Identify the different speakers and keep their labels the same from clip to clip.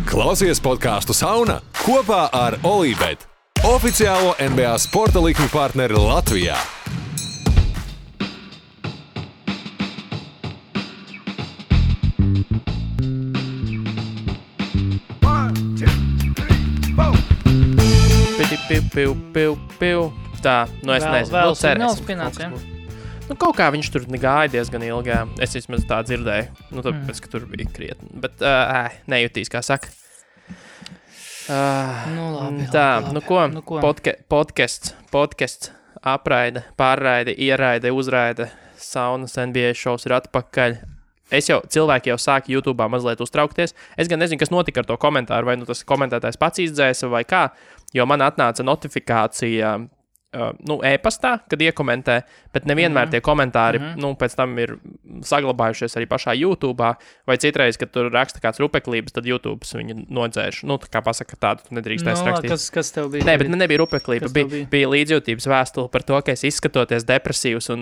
Speaker 1: Klausies podcastu Sauna kopā ar Olībet, oficiālo NBA sporta likmi partneri Latvijā.
Speaker 2: Piu. Tā, es nezinu.
Speaker 3: Vēl signāls pienāca, ja?
Speaker 2: Kaut kā viņš tur gāja diezgan ilgi. Es vismaz tā dzirdēju. Tāpēc, ka tur bija krietni. Bet nejutīs, kā saka.
Speaker 3: Labi.
Speaker 2: Ko? Podcasts, apraide, pārraide, ieraide, uzraide, saunas NBA šovs ir atpakaļ. Cilvēki jau sāka YouTube'ā mazliet uztraukties. Es gan nezinu, kas notika ar to komentāru, vai tas komentētājs pats izdzēsa vai kā, jo man atnāca notifikācija e-pastā, kad iekomentē, bet nevienmēr tie komentāri, pēc tam ir saglabājušies arī pašā YouTube'ā, vai citreiz, kad tur raksta kāds rupeklības, tad YouTube's viņu nodzēš. Tā kā pasaka tādu, tu nedrīkstēs rakstīt.
Speaker 3: Kas tev bija?
Speaker 2: Nē, bet nebija rupeklība, bija līdzjūtības vēstule par to, ka es izskatoties depresīvs un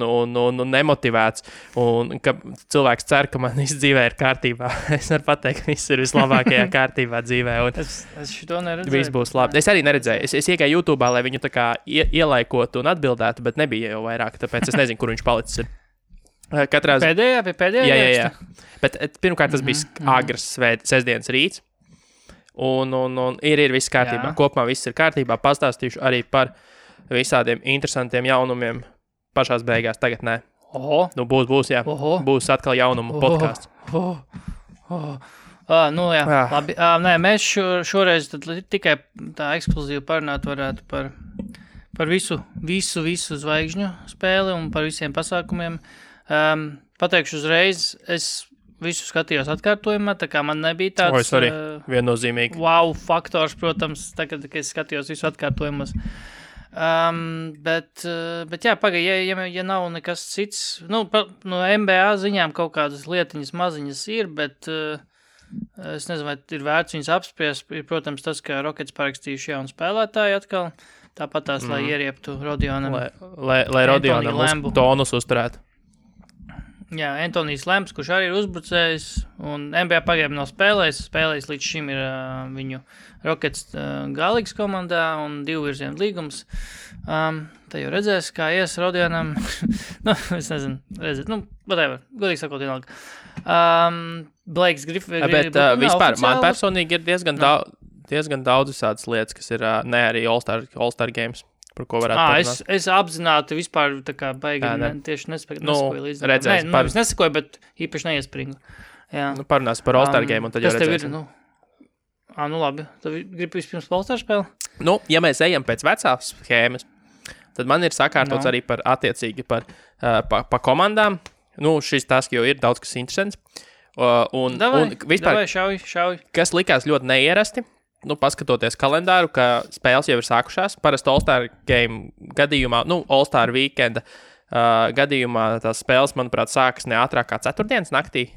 Speaker 2: nemotivēts, un ka cilvēks cer, ka man viss dzīvē ir kārtībā. Es varu pateikt, ka viss ir vislabākajā kārtībā dzīvē.
Speaker 3: Es šito neredzēju.
Speaker 2: Viss būs labi. Es arī neredzēju. Es iegāju YouTube'ā, lai viņu tā kā ielaikotu un atbildētu, bet nebija jau vairāk, tāpēc es nezinu, kur viņš palicis ir.
Speaker 3: Pēdējā?
Speaker 2: Jā. Bet pirmkārt tas bija agrs sestdienas rīts, un ir viss kārtībā. Kopumā viss ir kārtībā. Pastāstīšu arī par visādiem interesantiem jaunumiem pašās beigās. Tagad nē. Būs, jā. Būs atkal jaunumu podcasts.
Speaker 3: Labi. Nē, mēs šoreiz tikai tā ekskluzīvi parunāt varētu par visu zvaigžņu spēli un par visiem pasākumiem. Pateikšu uzreiz, es visu skatījos atkārtojumā, tā kā man nebija tāds
Speaker 2: viennozīmīgi
Speaker 3: wow faktors, protams, tagad, kad es skatījos visu atkārtojumus. Bet ja nav nekas cits, no NBA ziņām kaut kādas lietiņas maziņas ir, bet es nezinu, vai ir vērts viņas apspriest. Ir, protams, tas, ka Rockets parakstījuši jaunu spēlētāju atkal, tāpat tās, lai ierieptu Rodionam.
Speaker 2: Lai Rodionam tonus uzturētu.
Speaker 3: Jā, Antonijs Lemps, kurš arī ir uzbrucējs, un NBA pagaidām nav spēlējis līdz šim ir viņu Rockets galīgs komandā un 2 virzienu līgums. Te jau redzēs, kā ies Rodionam. Es nezinu, whatever, godīgi sakot, vienalga. Blakes Griffin.
Speaker 2: Bet vispār, man personīgi ir diezgan daudz visādas lietas, kas ir ne arī All-Star Games. Par ko varētu parunāt.
Speaker 3: Es apzināti vispār tā kā baigi tieši nesakoju līdz.
Speaker 2: Redzēs,
Speaker 3: es nesakoju, bet īpaši neiespringu. Jā.
Speaker 2: Parunās par All-Star game un tad jau redzēs.
Speaker 3: Labi. Tad gribu vispirms All-Star spēli?
Speaker 2: Ja mēs ejam pēc vecās schēmas, tad man ir sakārtots arī par attiecīgi par komandām. Šis tas jau ir daudz kas interesants. Un vispār,
Speaker 3: šauj.
Speaker 2: Kas likās ļoti neierasti, paskatoties kalendāru, ka spēles jau ir sākušās. Parasti All-Star game gadījumā, All-Star weekenda gadījumā tās spēles, manuprāt, sākas ne ātrāk kā ceturtdienas naktī.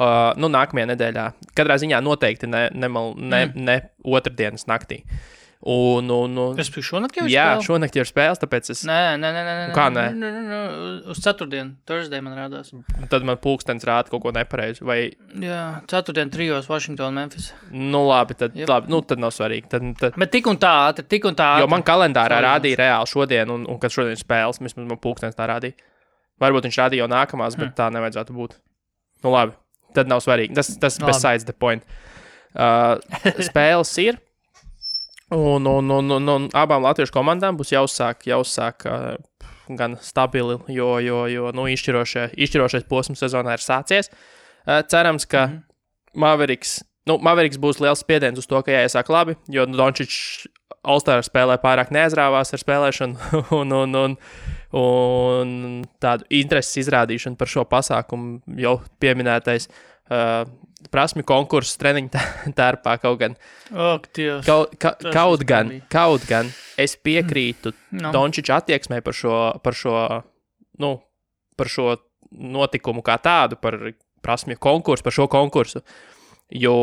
Speaker 2: Nākamajā nedēļā. Katrā ziņā noteikti ne otrdienas naktī.
Speaker 3: Es biju šonakt jau ir spēles?
Speaker 2: Jā, šonakt jau ir spēles, tāpēc es...
Speaker 3: Nē.
Speaker 2: Kā nē?
Speaker 3: Uz ceturtdienu, Thursday man rādās.
Speaker 2: Tad man pulkstenis rāda kaut ko nepareizi, vai...
Speaker 3: Jā, ceturtdien 3 Washington, Memphis.
Speaker 2: Labi, tad nav svarīgi.
Speaker 3: Bet tik un tā.
Speaker 2: Jo man kalendārā rādīja reāli šodien, un kad šodien ir spēles, vismaz man pulkstenis tā rādīja. Varbūt viņš rādīja jau nākamās, bet tā nevajadzētu būt. Labi, tad nav svarīgi. Tas besides the point. Spēles ir. Un abām latviešu komandām būs jāuzsāk gan stabili, jo izšķirošais posms sezonā ir sācies. Cerams, ka Mavericks būs liels spiediens uz to, ka jāiesāk labi, jo Dončičs All-Star spēlē pārāk neaizrāvās ar spēlēšanu un tādu intereses izrādīšanu par šo pasākumu jau pieminētais prasmi konkursu treniņu tērpā kaut gan. Kaut gan es piekrītu Dončiča attieksmē par šo notikumu kā tādu, par prasmi konkursu, par šo konkursu. Jo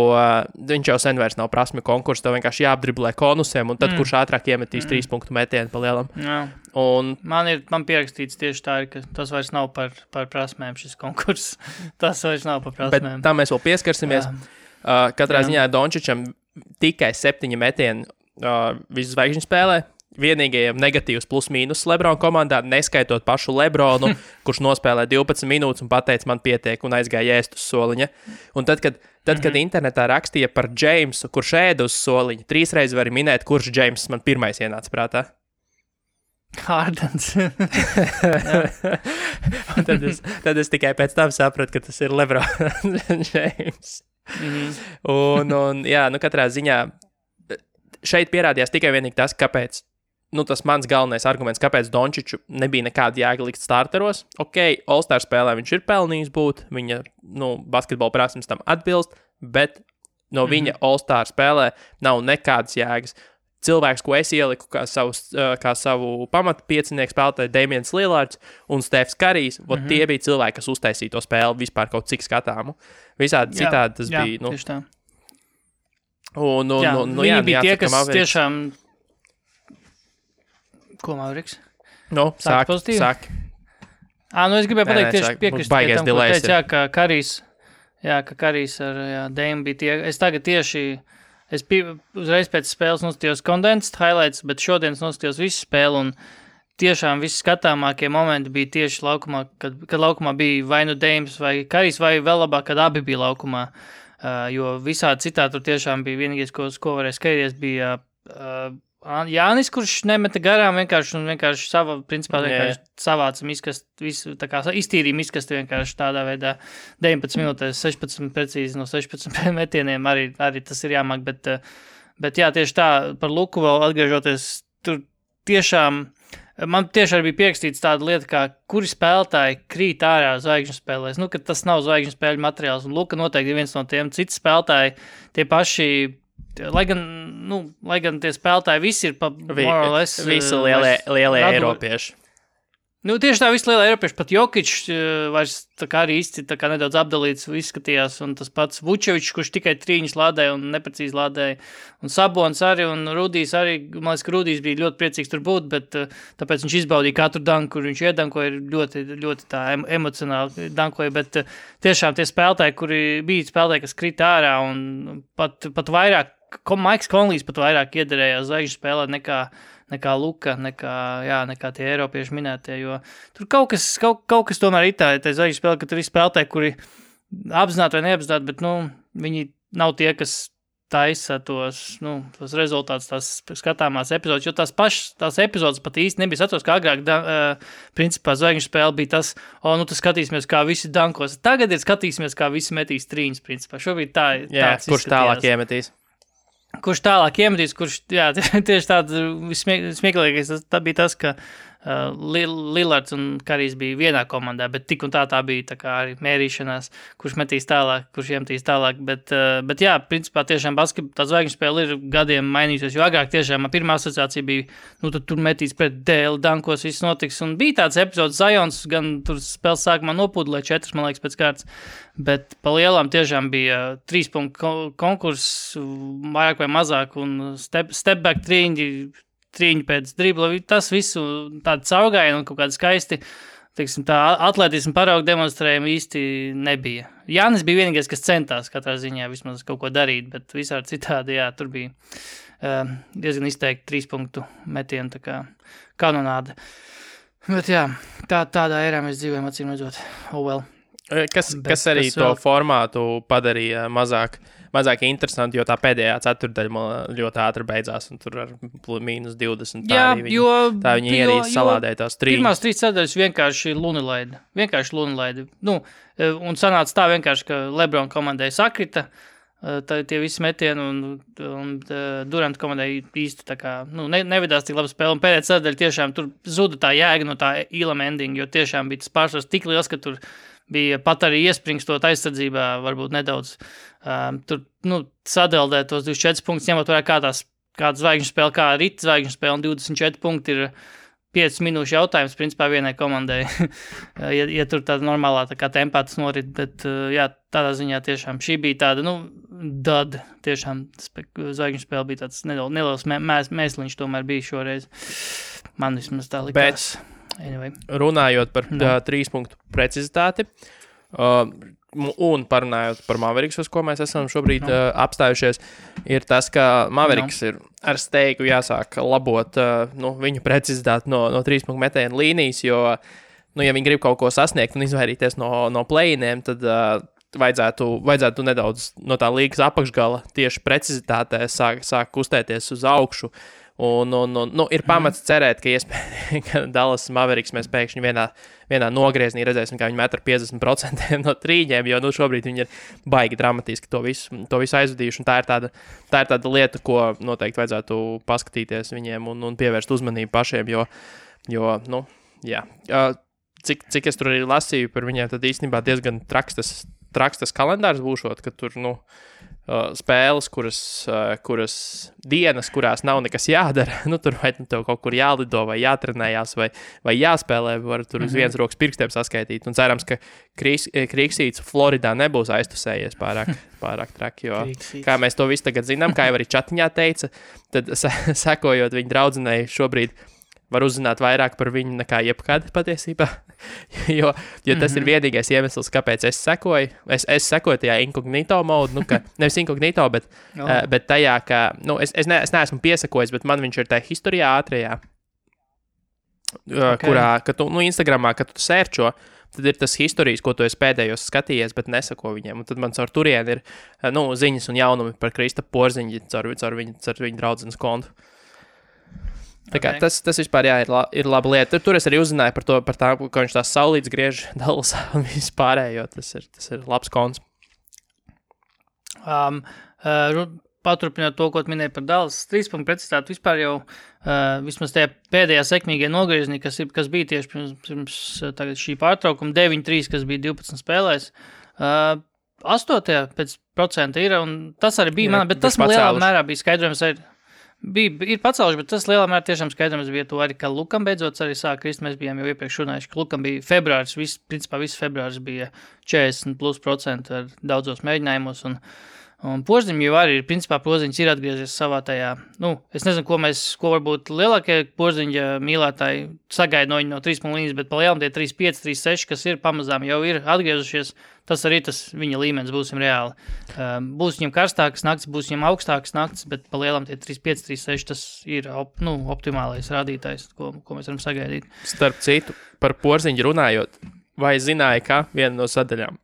Speaker 2: viņš jau sen vairs nav prasmi konkursu, tev vienkārši jāapdriblē konusiem, un tad kurš ātrāk iemetīs 3 punktu metienu pa lielam. Un
Speaker 3: man pierakstīts tieši tā, ka tas vairs nav par prasmēm šis konkurss. Tas vairs nav par prasmēm.
Speaker 2: Bet tam mēs vēl pieskarsimies. Katrā ziņā Dončičam tikai 7 metieni visu zvaigžņu spēlē. Vienīgajiem negatīvs plus-mínus Lebrona komandā, neskaitot pašu Lebronu, kurš nospēlē 12 minūtes un pateica, man pietiek, un aizgāja ēst uz soliņa. Un tad, kad internetā rakstīja par Jamesu, kurš ēda uz soliņa, 3 reizes var minēt, kurš James man pirmais ienāca prātā.
Speaker 3: Hardens.
Speaker 2: tad es tikai pēc tam sapratu, ka tas ir Lebrons James. Un jā, katrā ziņā šeit pierādījās tikai vienīgi tas, kāpēc. Tas mans galvenais arguments, kāpēc Dončiču nebija nekāda jēga likt starteros. Ok, All-Star spēlē viņš ir pelnījis būt, viņa, basketbola prasmes tam atbilst, bet no viņa All-Star spēlē nav nekādas jēgas. Cilvēks, ko es ieliku kā savu pamatu piecinieku spēlētāju, Damians Lillards un Stefs Karijs, tie bija cilvēki, kas uztaisīja to spēli vispār kaut cik skatāmu. Visādi citādi tas bija.
Speaker 3: Tieši tā.
Speaker 2: Viņi
Speaker 3: bija tie, kas tiešām... Ko, Mauriks?
Speaker 2: Sāk.
Speaker 3: Es gribēju pateikt tieši piekrist tam, ko teica, ka Karijs ar Dame bija tie. Es tagad tieši, uzreiz pēc spēles noskatījos condensed highlights, bet šodien noskatījos visu spēli un tiešām visi skatāmākie momenti bija tieši laukumā, kad laukumā bija vai nu Dames vai Karijs, vai vēl labāk, kad abi bija laukumā, jo visādi citādi tur tiešām bija vienīgais, ko varēja skatīties, bija... Jānis, kurš nemeta garām vienkārši savāca visu, tā kā iztīrīja miskasti vienkārši tādā veidā 19 minūtēs, 16 precīzi no 16 metieniem, arī tas ir jāmāk, bet jā, tieši tā, par Luku vēl atgriežoties, tur tiešām, man tieši arī bija pierakstīts tāda lieta, kā kuri spēlētāji krīt ārā zvaigžņu spēlēs, ka tas nav zvaigžņu spēļu materiāls, un Luka noteikti ir viens no tiem, citi spēlētāji, tie paši, lai gan tie spēlētāji visi ir more or less...
Speaker 2: Visi lielie eiropieši.
Speaker 3: Tieši tā, visi lielie eiropieši, pat Jokić vairs tā kā arī īsti tā kā nedaudz apdalīts izskatījās, un tas pats Vučevičs, kurš tikai trīņus lādēja un neprecīzi lādēja, un Sabons arī, un Rudijs arī, man liekas, ka Rudijs bija ļoti priecīgs tur būt, bet tāpēc viņš izbaudīja katru danku, kur viņš iedankoja, ļoti, ļoti tā emocionāli dankoja, bet tiešām tie spēlētāji, kuri bija spēlētāji, kas krita ārā, un pat vairāk, Maiks Konlijs pat vairāk iederējās zvaigžņu spēlē nekā Luka, nekā tie eiropieši minētie, jo tur kaut kas tomēr ir tā zvaigžņu spēle, ka tur ir spēlētāji, kuri apzināti vai neapzināti, bet, viņi nav tie, kas taisa tos rezultātus, tās skatāmās epizodes, jo tās epizodes pat īsti nebija satos, kā agrāk, principā zvaigžņu spēle bija tas, tas skatīsimies, kā visi dankos. Tagad ir skatīsimies, kā visi metīs trīņus, principā. Šobrīd tāds
Speaker 2: kurš tālāk iemetīs?
Speaker 3: Kurš tālāk iemetīs, tieši tāds smieklīgais, tā bija tas, ka Lillards un Karijs bija vienā komandā, bet tik un tā bija tā kā arī mērīšanās, kurš metīs tālāk, kurš iemetīs tālāk, bet jā, principā tiešām tā zvaigžņu spēle ir gadiem mainījusies, jo agrāk tiešām pirmā asociācija bija, tad tur metīs pret dēli, dankos, viss notiks, un bija tāds epizods Zions, gan tur spēles sākumā nopūdulē 4, man liekas, pēc kārtas, bet pa lielām tiešām bija 3 punktu konkurss, vairāk vai mazāk, un step back trīņi pēc dribla, tas visu tādu caurgājienu un kaut kādu skaisti, teiksim, tā atletismu paraugu demonstrējumu īsti nebija. Jānis bija vienīgais, kas centās katrā ziņā vismaz kaut ko darīt, bet visādi citādi, tur bija diezgan izteikti 3 punktu metienu, tā kā kanonāde. Bet jā, tādā erā mēs dzīvojam, acīm redzot. Oh well.
Speaker 2: Kas arī to formātu padarīja mazāk interesanti, jo tā pēdējā ceturdaļa ļoti ātri beidzās, un tur ar -20 tā viņi ierīja salādēja tās trīņas.
Speaker 3: Pirmās 3 ceturdaļas vienkārši lunilaidi. Un sanāca tā vienkārši, ka Lebrona komandai sakrita, tie visi metieni, un Durant komandai īsti tā kā, nevedās tik labi spēle, un pēdējā ceturdaļa tiešām tur zuda tā jēga no tā Elam ending, jo tiešām bija tas pārsvars tik liels, ka tur bija pat arī iespringstot aizsardzībā, varbūt nedaudz tur, sadeldēt tos 24 punktus, ņemot vērā kāda zvaigžņu spēle, kā rita zvaigžņu spēle, un 24 punkti ir 5 minūšu jautājums, principā vienai komandai, ja tur tāda normālā tā kā tempā tas norit, bet jā, tādā ziņā tiešām šī bija tāda, tiešām zvaigžņu spēle bija tāds neliels mēsliņš tomēr bija šoreiz. Man vismaz tā likās.
Speaker 2: Anyway. Runājot par 3 punktu precizitāti, Un parunājot par Mavericks, uz ko mēs esam šobrīd apstājušies, ir tas, ka Mavericks ir ar steigu jāsāk labot viņu precizitāti no 3-punktu metiena līnijas, jo, ja viņi grib kaut ko sasniegt un izvairīties no play-iniem, tad vajadzētu nedaudz no tā līgas apakšgala tieši precizitātē sāk kustēties uz augšu. Un ir pamats cerēt, ka iespējams, ka Dallas Mavericks mēs pēkšņi vienā nogrieznī redzēsim, kā viņi met ar 50% no trīņiem, jo šobrīd viņi ir baigi dramatiski to visu aizvadījuši. Un tā ir tāda lieta, ko noteikti vajadzētu paskatīties viņiem un pievērst uzmanību pašiem, jo cik es tur arī lasīju par viņiem, tad īstenībā diezgan traks tas kalendārs būšot, ka tur, spēles, kuras dienas, kurās nav nekas jādara, tur vai tev kaut kur jālido vai jātrenējās vai jāspēlē, var tur uz vienas rokas pirkstiem saskaitīt. Un cerams, ka Krīksīts Floridā nebūs aiztusējies pārāk traki, jo kā mēs to visu tagad zinām, kā jau arī čatiņā teica, tad sekojot viņu draudzenei šobrīd var uzzināt vairāk par viņu nekā jebkad patiesībā, jo tas ir vienīgais iemesls, kāpēc es sekoju. Es sekoju tajā inkognito modu, nevis inkognito, bet tajā, ka, es neesmu piesakojis, bet man viņš ir tajā historijā ātrajā, kurā, ka tu, Instagramā, kad tu sērčo, tad ir tas historijas, ko tu esi pēdējos skatījies, bet nesako viņiem. Un tad man caur turieni ir, ziņas un jaunumi par Kristapu Porziņu caur viņu draudzenes kontu. Tā kā tas vispār ir laba lieta. Tur es arī uzzināju par tā, ka viņš tās saulītes griež Dallasā un viss pārējo. Tas ir labs konts.
Speaker 3: Paturpinot to, ko minēja par Dallas 3-punktu precizitāti, vispār jau vismaz tajā pēdējā sekmīgajā nogriezienī, kas bija tieši pirms tagad šī pārtraukuma, 9-3, kas bija 12 spēlēs, 8% ir, un tas arī bija man, bet tas lielā mērā bija skaidrojums arī. Ir pacēluši, bet tas lielā mērā tiešām skaidrams bija to arī, ka Lukam beidzot arī sāk krist. Mēs bijām jau iepriekš runājuši, ka Lukam bija februāris, principā viss februāris bija 40% ar daudzos mēģinājumos, un Porziņš jau arī, principā Porziņš ir atgriezies savā tajā, es nezinu, ko varbūt lielākie Porziņa mīlētāji sagaida no viņa no 3 līnijas, bet pa lielam tie 3-5, 3-6, kas ir pamazām jau ir atgriezušies, tas arī tas viņa līmenis būsim reāli. Būs viņam karstākas nakts, būs viņam augstākas nakts, bet pa lielam tie 3-5, 3-6, tas ir optimālais rādītājs, ko mēs varam sagaidīt.
Speaker 2: Starp citu, par Porziņu runājot, vai zināja, ka viena no sadaļām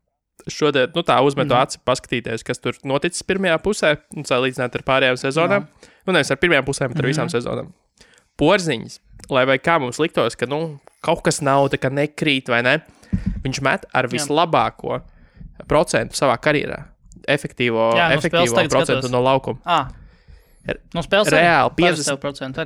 Speaker 2: šodien, tā uzmetu aci paskatīties, kas tur noticis pirmajā pusē, un salīdzināt ar pārējām sezonām. Nevis ar pirmajām pusēm, bet ar visām sezonām. Porziņas, lai vai kā mums liktos, ka, kaut kas nav, tā kā nekrīt vai ne, viņš met ar vislabāko procentu savā karjerā. Efektīvo procentu no laukuma.
Speaker 3: No spēles
Speaker 2: reāli 50%.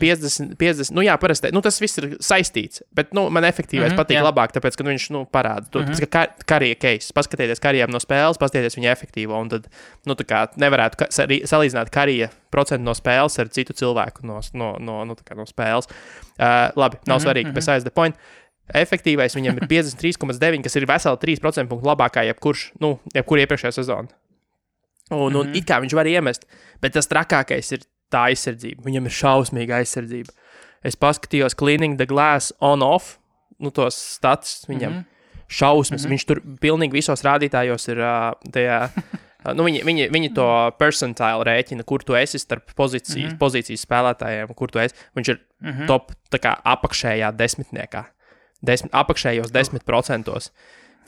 Speaker 2: Parasti, tas viss ir saistīts, bet, man efektīvais patīk labāk, tāpēc, ka viņš, parāda. Tāpēc, ka karija case, paskatieties karijām no spēles, paskatieties viņa efektīvo, un tad, tā kā nevarētu salīdzināt karija procentu no spēles ar citu cilvēku no spēles. Labi, nav svarīgi, besides the point. Efektīvais viņam ir 53,9, kas ir veseli 3% punktu labākā jebkura iepriekšējā sezona. Un it kā viņš var iemest, bet tas trakākais ir tā aizsardzība. Viņam ir šausmīga aizsardzība. Es paskatījos Cleaning the Glass on-off, tos status viņam šausmas. Viņš tur pilnīgi visos rādītājos ir tajā, viņi to percentile rēķina, kur tu esi starp pozīcijas spēlētājiem, kur tu esi. Viņš ir top tā kā apakšējā desmitniekā. Apakšējos 10%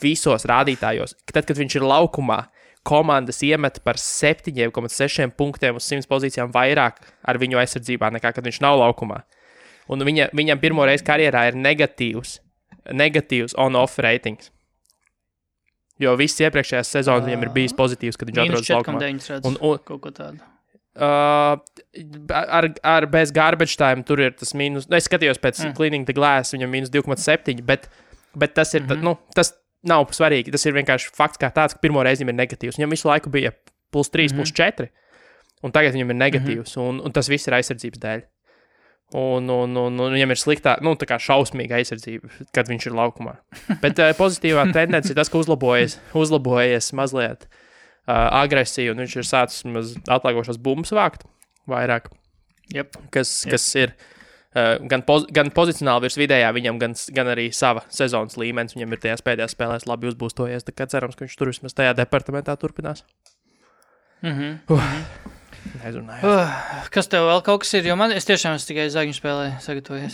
Speaker 2: visos rādītājos. Tad, kad viņš ir laukumā, komandas iemet par 7,6 punktiem uz 100 pozīcijām vairāk ar viņu aizsardzībā, nekā kad viņš nav laukumā. Un viņam pirmo reizi karjerā ir negatīvs on-off ratings. Jo viss iepriekšējās sezonas viņam ir bijis pozitīvs, kad viņš atrodas laukumā.
Speaker 3: Kaut ko tādu.
Speaker 2: Ar bez garbage time tur ir tas mīnus. Es skatījos pēc Cleaning the Glass, viņam mīnus 2,7, bet tas ir, tas nav svarīgi. Tas ir vienkārši fakts kā tāds, ka pirmo reizi viņam ir negatīvs. Viņam visu laiku bija +3, +4, un tagad viņam ir negatīvs, un tas viss ir aizsardzības dēļ. Un viņam ir sliktā, tā kā šausmīga aizsardzība, kad viņš ir laukumā. Bet pozitīvā tendence ir tas, ka uzlabojies mazliet agresiju, un viņš ir sācis atslēgošos bumbas vākt vairāk, kas ir gan pozicionāli virs vidējā viņam, gan arī sava sezonas līmenis. Viņam ir tajās pēdējās spēlēs labi uzbūstojies, tā kā cerams, ka viņš tur vismaz tajā departamentā turpinās.
Speaker 3: Kas tev vēl kaut kas ir? Jo es tiešām tikai zagņu spēlēju sagatavojies.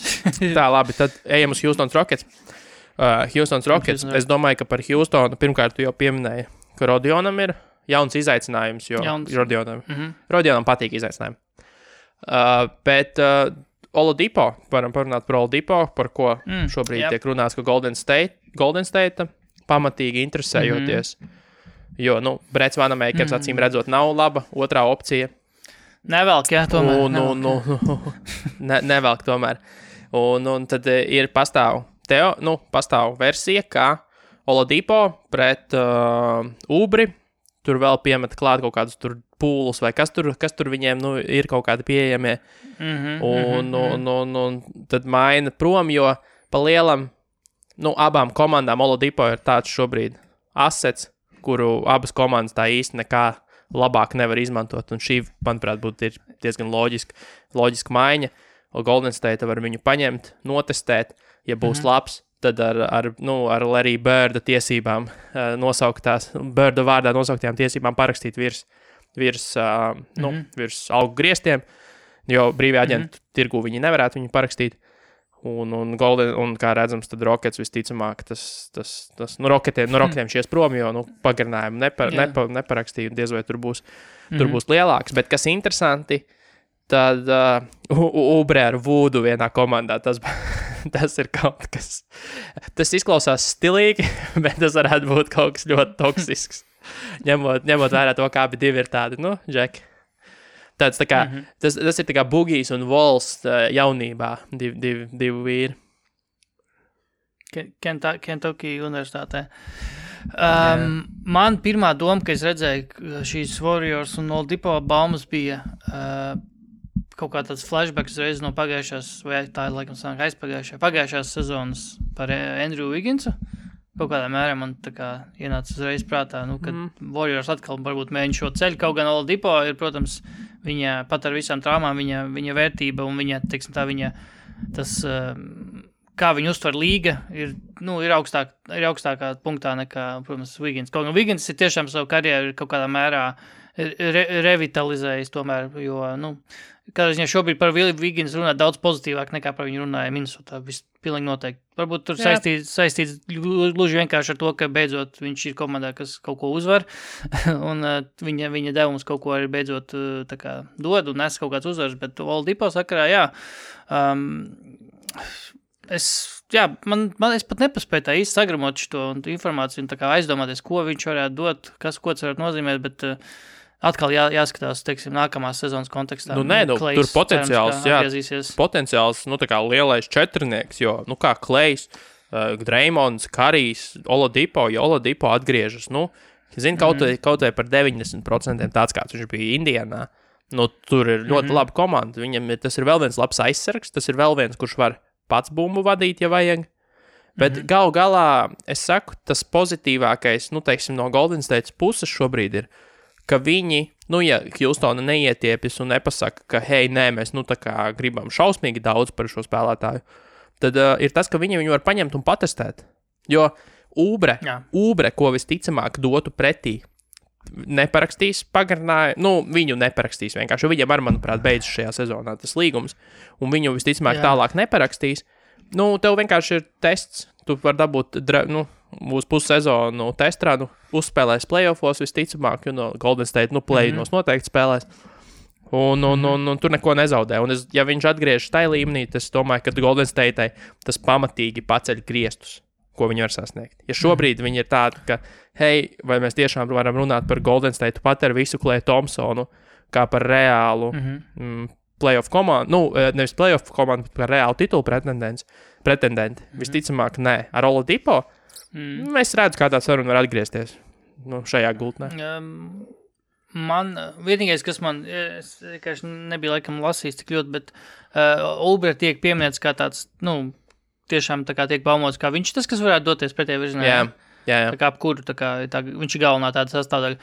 Speaker 2: Tā, labi, tad ejam uz Houston Rockets. Houston Rockets, es domāju, ka par Houstonu pirmkārt tu jau pieminēji, ka Rodionam ir jauns izaicinājums, jo Rodionam patīk izaicinājumi. Bet Oladipo, varam parunāt par Oladipo, par ko šobrīd tiek runāts, ka Golden State pamatīgi interesējoties, jo, Brets Vanamakers acīm redzot nav laba otrā opcija.
Speaker 3: Nevelk, jā, tomēr.
Speaker 2: Nevelk tomēr. Un tad ir pastāv versija, kā Oladipo pret Ubri, tur vēl piemet klāt kaut kādus tur pūlus, vai kas tur viņiem ir kaut kādi pieejamie. Un tad maina prom, jo pa lielam, abām komandām Oladipo ir tāds šobrīd assets, kuru abas komandas tā īsti nekā labāk nevar izmantot, un šī, manuprāt, būtu diezgan loģiska maiņa. Golden State var viņu paņemt, notestēt, ja būs labs, tad ar Larry Birda tiesībām Birda vārdā nosauktajām tiesībām parakstīt virs augu griestiem, jo brīvajā aģentu tirgu viņi nevarētu viņu parakstīt. Un kā redzams, tad Rockets visticamāk, Rocketiem šies prom, jo, pagarinājumu neparakstīja, diez vai tur būs lielāks. Bet kas interesanti, tad Ubre ar Voodu vienā komandā, tas ir kaut kas, tas izklausās stilīgi, bet tas varētu būt kaut kas ļoti toksisks. ņemot vērā to, kā abi divi ir tādi, Džeki. Tas ir tā kā Bugijs un Vols jaunībā, divi vīri.
Speaker 3: Kentucky universitātē. Man pirmā doma, ka es redzēju šīs Warriors un Oladipo baumas bija kaut kā tāds flashbacks reiz no pagājušās, vai tā ir laikam sanāk pagājušās sezonas par Andrew Wigginsu. Kaut kādā mērā man tā kā ienāca uzreiz prātā, kad Warriors atkal varbūt mēģina šo ceļu, kaut gan Oladipo ir, protams, viņa pat ar visām traumām, viņa vērtība un viņa, teiksim tā, tas, kā viņa uztver līga, ir augstākā punktā nekā, protams, Wiggins. Kaut gan Wiggins ir tiešām savu karjeru kaut kādā mērā revitalizējis tomēr, jo, kādā ziņā šobrīd par Wiggins runā daudz pozitīvāk nekā par viņu runāja Minnesotā, pilnīgi noteikti. Varbūt tur saistīts gluži vienkārši ar to, ka beidzot viņš ir komandā, kas kaut ko uzvar, un viņa devums kaut ko arī beidzot tā kā dod un nes kaut kāds uzvars, bet Oladipo sakarā, es pat nepaspēju tā īsti sagramot šo informāciju un tā kā aizdomāties, ko viņš varētu dot, ko tas varētu nozīmēt, bet atkal jāskatās, teiksim, nākamās sezonas kontekstā.
Speaker 2: Tur potenciāls, tā kā lielais četrnieks, jo, kā Klejs, Dreymonds, Karijs, Oladipo, jo Oladipo atgriežas, kaut vai par 90% tāds, kāds viņš bija Indianā. Tur ir ļoti laba komanda, viņam tas ir vēl viens labs aizsargs, tas ir vēl viens, kurš var pats bumbu vadīt, ja vajag. Bet galu galā, es saku, tas pozitīvākais, teiksim, no Golden State puses šobrīd ir, ka viņi, ja Houstona neietiepjas un nepasaka, ka, hei, nē, mēs, tā kā gribam šausmīgi daudz par šo spēlētāju, tad ir tas, ka viņi viņu var paņemt un patestēt. Jo Ubre, ko visticamāk dotu pretī, neparakstīs pagarinājumu, viņu neparakstīs vienkārši, jo viņam manuprāt, beidzas šajā sezonā tas līgums, un viņu visticamāk tālāk neparakstīs. Tev vienkārši ir tests, tu var dabūt, uz pussezonu testrā, uzspēlēs playoffos visticamāk, Golden State, play-inos noteikti spēlēs, un tur neko nezaudē. Un ja viņš atgriežas tajā līmenī, tas domāju, ka Golden State tas pamatīgi paceļ griestus, ko viņi var sasniegt. Ja šobrīd viņi ir tādi, ka, hei, vai mēs tiešām varam runāt par Golden State pat ar visu Klay Thompsonu, kā par reālu playoff komandu, nevis playoff komandu, bet par reālu titulu pretendenti. Visticamāk, nē. Ar Oladipo es redzu, kā tā saruna var atgriezties šajā gultnē.
Speaker 3: Man vienīgais, kas man, es vienkārši nebija laikam lasījis tik ļoti, bet Ubre tiek pieminēts kā tāds, tiešām tā kā tiek baumots, kā viņš tas, kas varētu doties pretējā virzienā.
Speaker 2: Jā.
Speaker 3: Tā kā ap kuru, viņš ir galvenā tāda sastāvdaļa.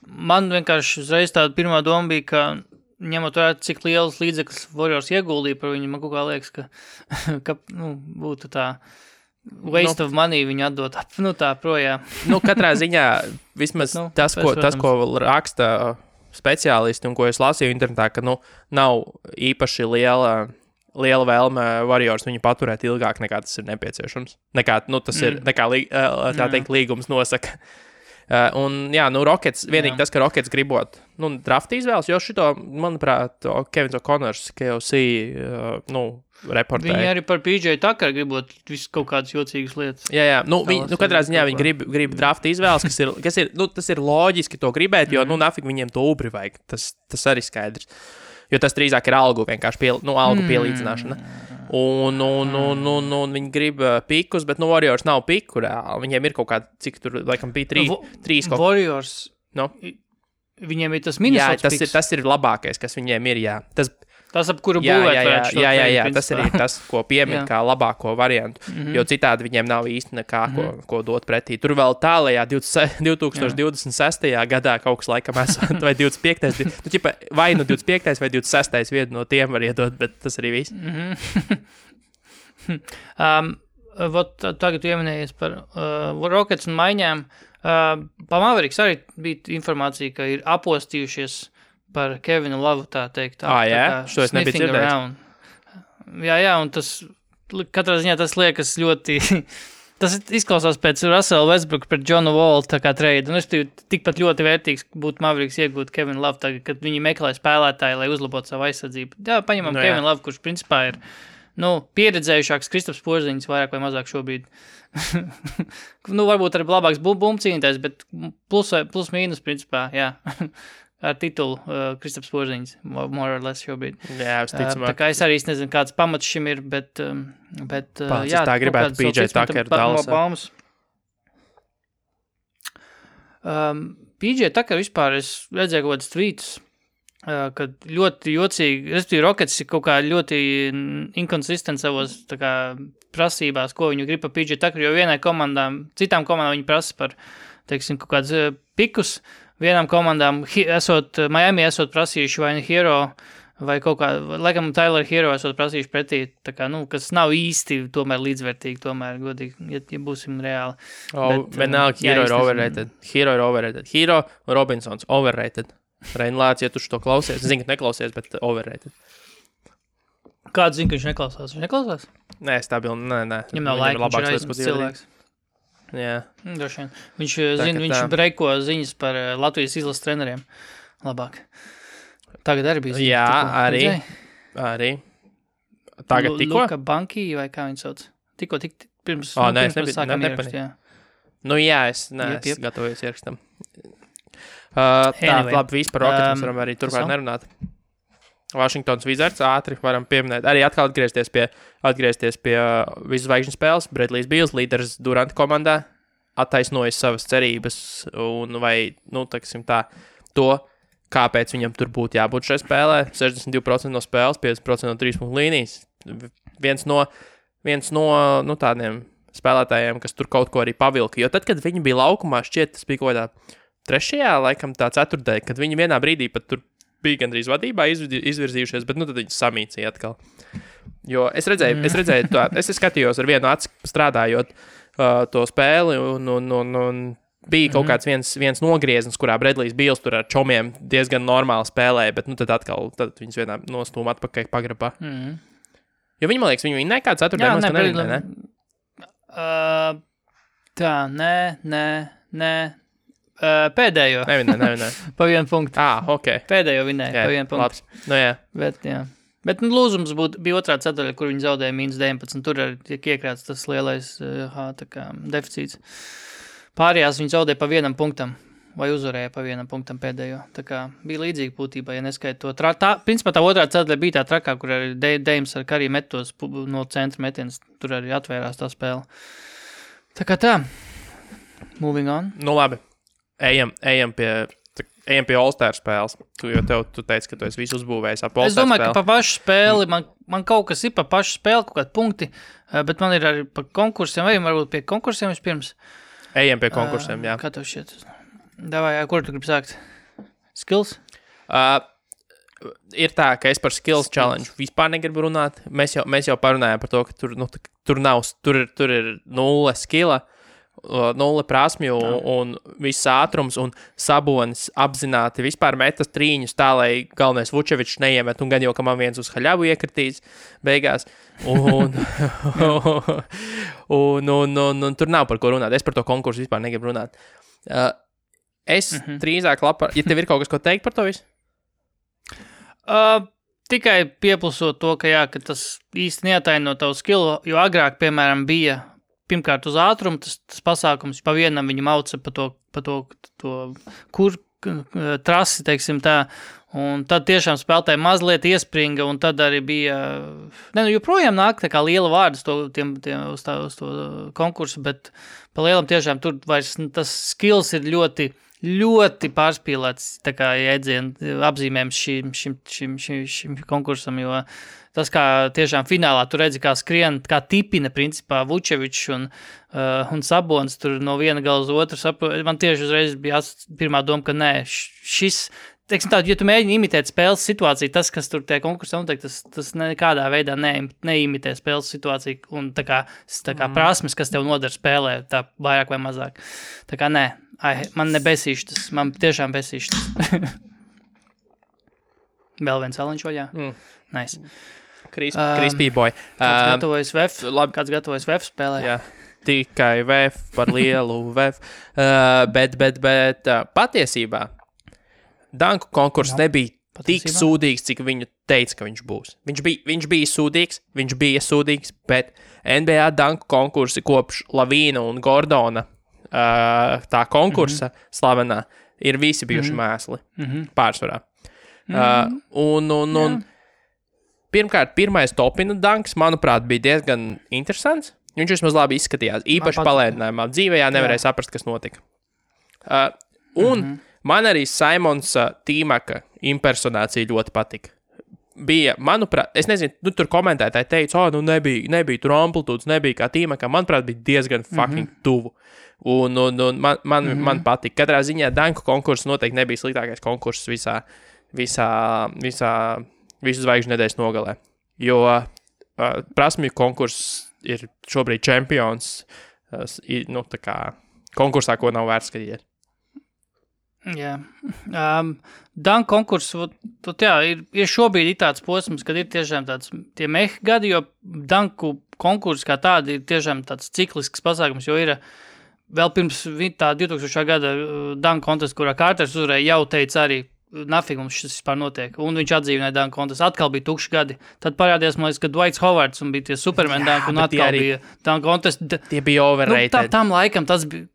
Speaker 3: Man vienkārši uzreiz tāda pirmā doma bija, ka ņemot vērā, cik liels līdzeklis Warriors ieguldīja par viņu, man kaut kā liekas, ka būtu tā waste of money viņu atdot tā projām.
Speaker 2: Katrā ziņā vismaz tas, ko raksta speciālisti un ko es lasīju internetā, ka nav īpaši liela vēlme Warriors viņu paturēt ilgāk nekā tas ir nepieciešams. Tā teikt, līgums nosaka. Rockets, vienīgi tas, ka Rockets gribot, drafta izvēles, jo šito, manuprāt, Kevins O'Connors, KOC, reportēja.
Speaker 3: Viņi arī par PJ Tucker gribot visu kaut kādas jocīgas lietas.
Speaker 2: Jā. Katrā ziņā viņi grib drafta izvēles, kas ir tas ir loģiski to gribēt, jo, nafik viņiem to ubri vajag. Tas arī skaidrs. Jo tas drīzāk ir algu vienkārši algu pielīdzināšana. Un viņi grib pikus, bet Warriors nav piku reāli. Viņiem ir kaut kādi, cik tur, laikam, bija trīs kaut.
Speaker 3: Warriors, viņiem ir tas Minnesota piks.
Speaker 2: Tas ir labākais, kas viņiem ir, jā.
Speaker 3: Tas, ap kuru būvēt.
Speaker 2: Jā, tas arī tas, ko piemin kā labāko variantu, jo citādi viņiem nav īsti nekā, ko dot pretī. Tur vēl tālajā 2026. gadā kaut kas laikam esot, vai 25. Vai 25. vai 26. vienu no tiem var iedot, bet tas arī viss.
Speaker 3: Tagad ieminējies par Rockets un maiņām. Pa Mavericks arī bija informācija, ka ir apostījušies par Kevinu Lovu, tā teikt.
Speaker 2: Šo es nebiju dzirdējis.
Speaker 3: Jā, un tas, katrā ziņā tas liekas ļoti, tas izklausās pēc Russell Westbrook pret Johnu Wall tā kā trade, un es tikpat ļoti vērtīgs būtu Mavericks iegūt Kevinu Lovu tagad, kad viņi meklē spēlētāju, lai uzlabotu savu aizsardzību. Jā, paņemam Kevinu Lovu, kurš principā ir, pieredzējušāks Kristaps Porziņš vairāk vai mazāk šobrīd. Varbūt arī labāks bumcīnītājs, bet plus mīnus principā, jā. Ar titulu Kristaps Porziņš, more or less šobrīd.
Speaker 2: Jā,
Speaker 3: tā kā es arī nezinu, kāds pamats šim ir, bet
Speaker 2: jā. Tā gribētu PJ Tucker Dallasā.
Speaker 3: PJ Tucker vispār, es redzēju kaut kādas tweets, kad ļoti jocīgi, respektīvi Rockets ir kaut kā ļoti inconsistent savos tā kā prasībās, ko viņu grib par PJ Tucker, jo citām komandām viņi prasa par, teiksim, kaut kādus pikus. Vienām komandām, Miami esot prasījuši vai Hero, vai kaut kā, laikam Tyler Hero esot prasījuši pretī, tā kā, kas nav īsti tomēr līdzvērtīgi, tomēr godīgi, ja būsim reāli.
Speaker 2: Vienalga, Hero ir overrated. Hero Robinsons, overrated. Reinlāts, ja tu šo klausies, zinu, ka neklausies, bet overrated.
Speaker 3: Kāds zina, ka viņš neklausās? Viņš neklausās?
Speaker 2: Nē, stabili, nē.
Speaker 3: Viņam nav laika, viņš ir aizmirst cilvēks.
Speaker 2: Jā.
Speaker 3: Droši vien. Viņš breiko ziņas par Latvijas izlases treneriem. Labāk. Tagad arī bija
Speaker 2: ziņas. Jā, arī. Tagad tikko?
Speaker 3: Luka Banki, vai kā viņš sauc? Tikko, pirms
Speaker 2: sākam ierakst, jā. Jā, es gatavojos ierakstam. Labi, viss par Rockets mēs varam arī turpāk nerunāt. Washingtons Wizards ātri varam pieminēt. Arī atkal atgriezties pie visu zvaigžņu spēles. Bradley's Beals, līderis Durant komandā, attaisnojas savas cerības un vai, to, kāpēc viņam tur būtu jābūt šai spēlē. 62% no spēles, 50% no 3 punktu līnijas. Viens no tādiem spēlētājiem, kas tur kaut ko arī pavilka. Jo tad, kad viņi bija laukumā, šķiet, tas bija kaut kādā 3. laikam tā 4. kad viņi vienā brīdī pat tur bija gandrīz vadībā izvirzījušies, bet tad viņi samīcīja atkal. Jo es redzēju es skatījos ar vienu aci strādājot to spēli un bija kaut kāds viens nogrieznis, kurā Bradley's Beals tur ar čomiem diezgan normāli spēlēja, bet tad viņas vienā nostūma atpakaļ pagrabā. Jo viņi, man liekas, viņi nekā 4. mūs nevinnē, ne?
Speaker 3: Nē. Pēdējo.
Speaker 2: Nevinnē.
Speaker 3: Pa 1 punktu.
Speaker 2: Ok.
Speaker 3: Pēdējo vinnēja, pa 1 punktu.
Speaker 2: Jā.
Speaker 3: Bet lūzums bija otrā ceturdaļa, kur viņi zaudēja -19. Tur arī tiek iekrāts tas lielais deficīts. Pārējās viņi zaudēja pa 1 punktam, vai uzvarēja pa 1 punktam pēdējo. Tā kā bija līdzīgi būtībā, ja neskait to. Principā tā otrā ceturdaļa bija tā trakā, kur arī Deims ar Karī metos no centra metienas. Tur arī atvērās tā spēle. Tā kā tā. Moving on.
Speaker 2: Labi. Ejam pie All-Star spēles, jo tu teici, ka tu esi visu uzbūvējis ap All-Star spēli.
Speaker 3: Es domāju, ka pa pašu spēli, man kaut kas ir pa pašu spēli, kaut kādi punkti, bet man ir arī pa konkursiem, vai varbūt pie konkursiem vispirms.
Speaker 2: Ejam pie konkursiem, jā.
Speaker 3: Kā tev šķiet? Davai, kur tu gribi sākt? Skills?
Speaker 2: ir tā, ka es par skills challenge vispār negribu runāt. Mēs jau parunājām par to, ka tur ir 0 skilla, 0 prasmju un viss ātrums, un Sabonis apzināti vispār metas trīņus tā, lai galvenais Vučevičs neiemet, un gan jau, ka man viens uz haļavu iekritīs beigās. Un tur nav par ko runāt. Es par to konkursu vispār negribu runāt. Es drīzāk ja tev ir kaut kas, ko teikt par to visu?
Speaker 3: Tikai pieplusot to, ka tas īsti neataino tavu skillu, jo agrāk, piemēram, bija pirmkārt uz ātrumu tas pasākums, pa vienam viņu mauca pa to trasi, teiksim tā, un tad tiešām spēlētāji mazliet iespringa, un tad arī bija, joprojām nāk tā kā liela vārdas uz to konkursu, bet pa lielam tiešām tur vairs tas skills ir ļoti pārspīlēts, tā kā jēdzienu apzīmējums šim konkursam, jo tas, kā tiešām finālā tu redzi, kā skrien, kā tipina, principā, Vučevičs un Sabonis tur no viena gala uz otru. Man tieši uzreiz bija pirmā doma, ka nē, šis, teiksim tā, ja tu mēģini imitēt spēles situāciju, tas, kas tur tie konkursā notiek, tas nekādā veidā neimitē spēles situāciju, un tā kā prasmes, kas tev nodara spēlē, tā vairāk vai mazāk. Tā kā nē, man nebesīš tas, man tiešām besīš tas. Vēl viens aliņš vaļā? Nice.
Speaker 2: Crispy boy.
Speaker 3: Kāds gatavojas VF spēlē?
Speaker 2: Jā, tikai VF par lielu VF. Bet patiesībā danku konkurss nebija tik sūdīgs, cik viņu teica, ka viņš būs. Viņš bija sūdīgs, bet NBA danku konkursi kopš Lavīna un Gordona tā konkursa slavenā ir visi bijuši mēsli pārsvarā. Pirmkārt, pirmais topina danks, manuprāt, bija diezgan interesants. Viņš vismaz labi izskatījās. Īpaši palēdinājumā. Dzīvējā nevarēja saprast, kas notika. Man arī Simons Tīmaka impersonācija ļoti patika. Bija, manuprāt, es nezinu, tur komentētāji teica, nebija tur amplitūdas, nebija kā Tīmakam. Manuprāt, bija diezgan fucking tuvu. Un man patika. Katrā ziņā danku konkurss noteikti nebija sliktākais konkurss visu zvaigžņu nedēļas nogalē. Jo prasmju konkurss ir šobrīd čempions, tā kā konkursā, ko nav vērts skatīties.
Speaker 3: Jā. Danku konkurss, ir šobrīd tāds posms, kad ir tiešām tāds tie mehi gadi, jo danku konkurss kā tādi ir tiešām tāds ciklisks pasākums, jo ir vēl pirms tā 2000. Gada danku kontests, kurā Kārters uzvarēja, jau teica arī, nafig mums šis vispār notiek. Un viņš atdzīvināja danku kontestu. Atkal bija tukši gadi. Tad parādījās, man liekas, ka Dwights Howards un bija tie Superman danku, un atkal bija danku kontestu.
Speaker 2: Tie bija overrated.
Speaker 3: Tam laikam tas bija,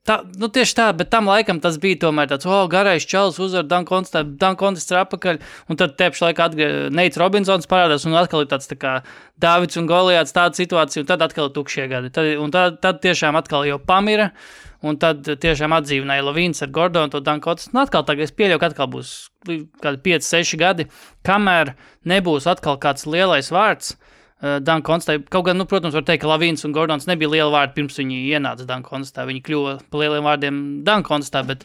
Speaker 3: tieši tā, bet tam laikam tas bija tomēr tāds, garais čalis uzvar danku kontests ir apakaļ, un tad tepši laikā Neits Robinsons parādās, un atkal ir tāds tā kā Dāvids un Goliāts tāda situācija, un tad atkal ir tukšie gadi. Tad tiešām atkal jau pamira, un tad tiešām atdzīvināja Lavīns ar Gordonu to danku kontestu. Un atkal tagad es pieļauju, ka atkal būs kādi 5-6 gadi, kamēr nebūs atkal kāds lielais vārds danku kontestā. Kaut gan, protams, var teikt, ka Lavīns un Gordons nebija liela vārdi pirms viņi ienāca danku kontestā. Viņi kļuva pa lieliem vārdiem danku kontestā, bet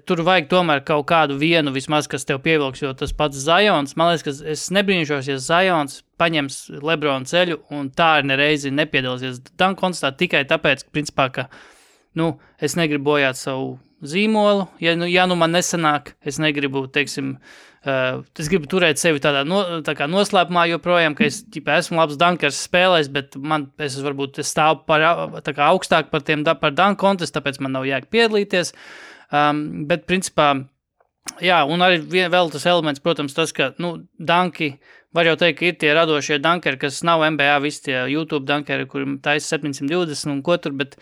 Speaker 3: tur vajag tomēr kaut kādu vienu vismaz, kas tev pievilks, jo tas pats Zions, man liekas, ka es nebrīnīšos, ja Zions paņems Lebrona ceļu un tā ir nereizi nepiedalīsies danku kontestā tikai tāpēc, principā, ka es negribu bojāt savu zīmolu, ja man nesanāk, es negribu, teiksim, es gribu turēt sevi tā kā noslēpumā joprojām, ka es esmu labs dankers spēlēs, bet es stāvu tā kā augstāk par danku kontestu, tāpēc man nav jēga piedalīties, bet principā, jā, un arī vēl tas elements, protams, tas, ka, danki, var jau teikt, ka ir tie radošie dankeri, kas nav NBA, visi tie YouTube dankeri, kuriem taisa 720 un ko tur, bet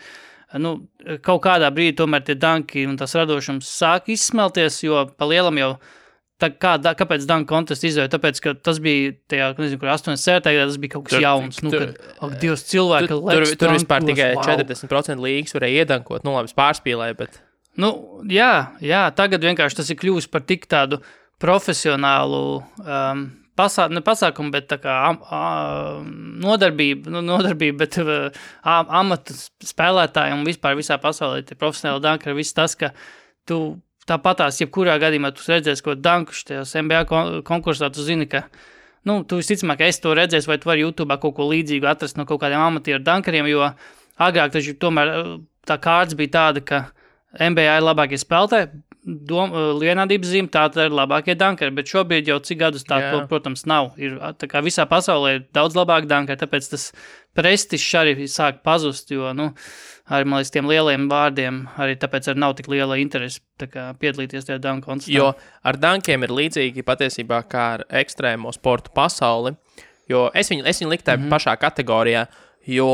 Speaker 3: kaut kādā brīdī tomēr tie danki un tas radošums sāk izsmelties, jo pa lielam jau, kāpēc danku kontestu izvēja? Tāpēc, ka tas bija tajā, nezinu, kur 87. gadā, tas bija kaut kas jauns. Divas cilvēki
Speaker 2: tur vispār tikai 40% līgas varēja iedankot, labi, pārspīlēja, bet...
Speaker 3: Jā, tagad vienkārši tas ir kļuvis par tik tādu profesionālu pasākumu, bet tā kā nodarbība, bet amata spēlētāji un vispār visā pasaulē tie profesionāli dankari, viss tas, ka tu tāpatās, jebkurā gadījumā tu redzēsi, ko dankuši tajos NBA konkursā, tu zini, ka, tu visticamāk, ka es to redzēs, vai tu vari YouTube kaut ko līdzīgu atrast no kaut kādiem amatieru dankariem, jo agrāk taču tomēr tā kārts bija tāda, ka NBA ir labākie spēlētāji, vienādības zīme, tā ir labākie dankari, bet šobrīd jau cik gadus tā, to, protams, nav. Ir, tā kā visā pasaulē ir daudz labāk dankari, tāpēc tas prestižs arī sāk pazust, jo, arī, man liekas, tiem lieliem vārdiem arī tāpēc arī nav tik liela interese tā kā piedalīties tajā danku konstitā.
Speaker 2: Jo ar dankiem ir līdzīgi patiesībā kā ar ekstrēmo sportu pasauli, jo es viņu liktu pašā kategorijā, jo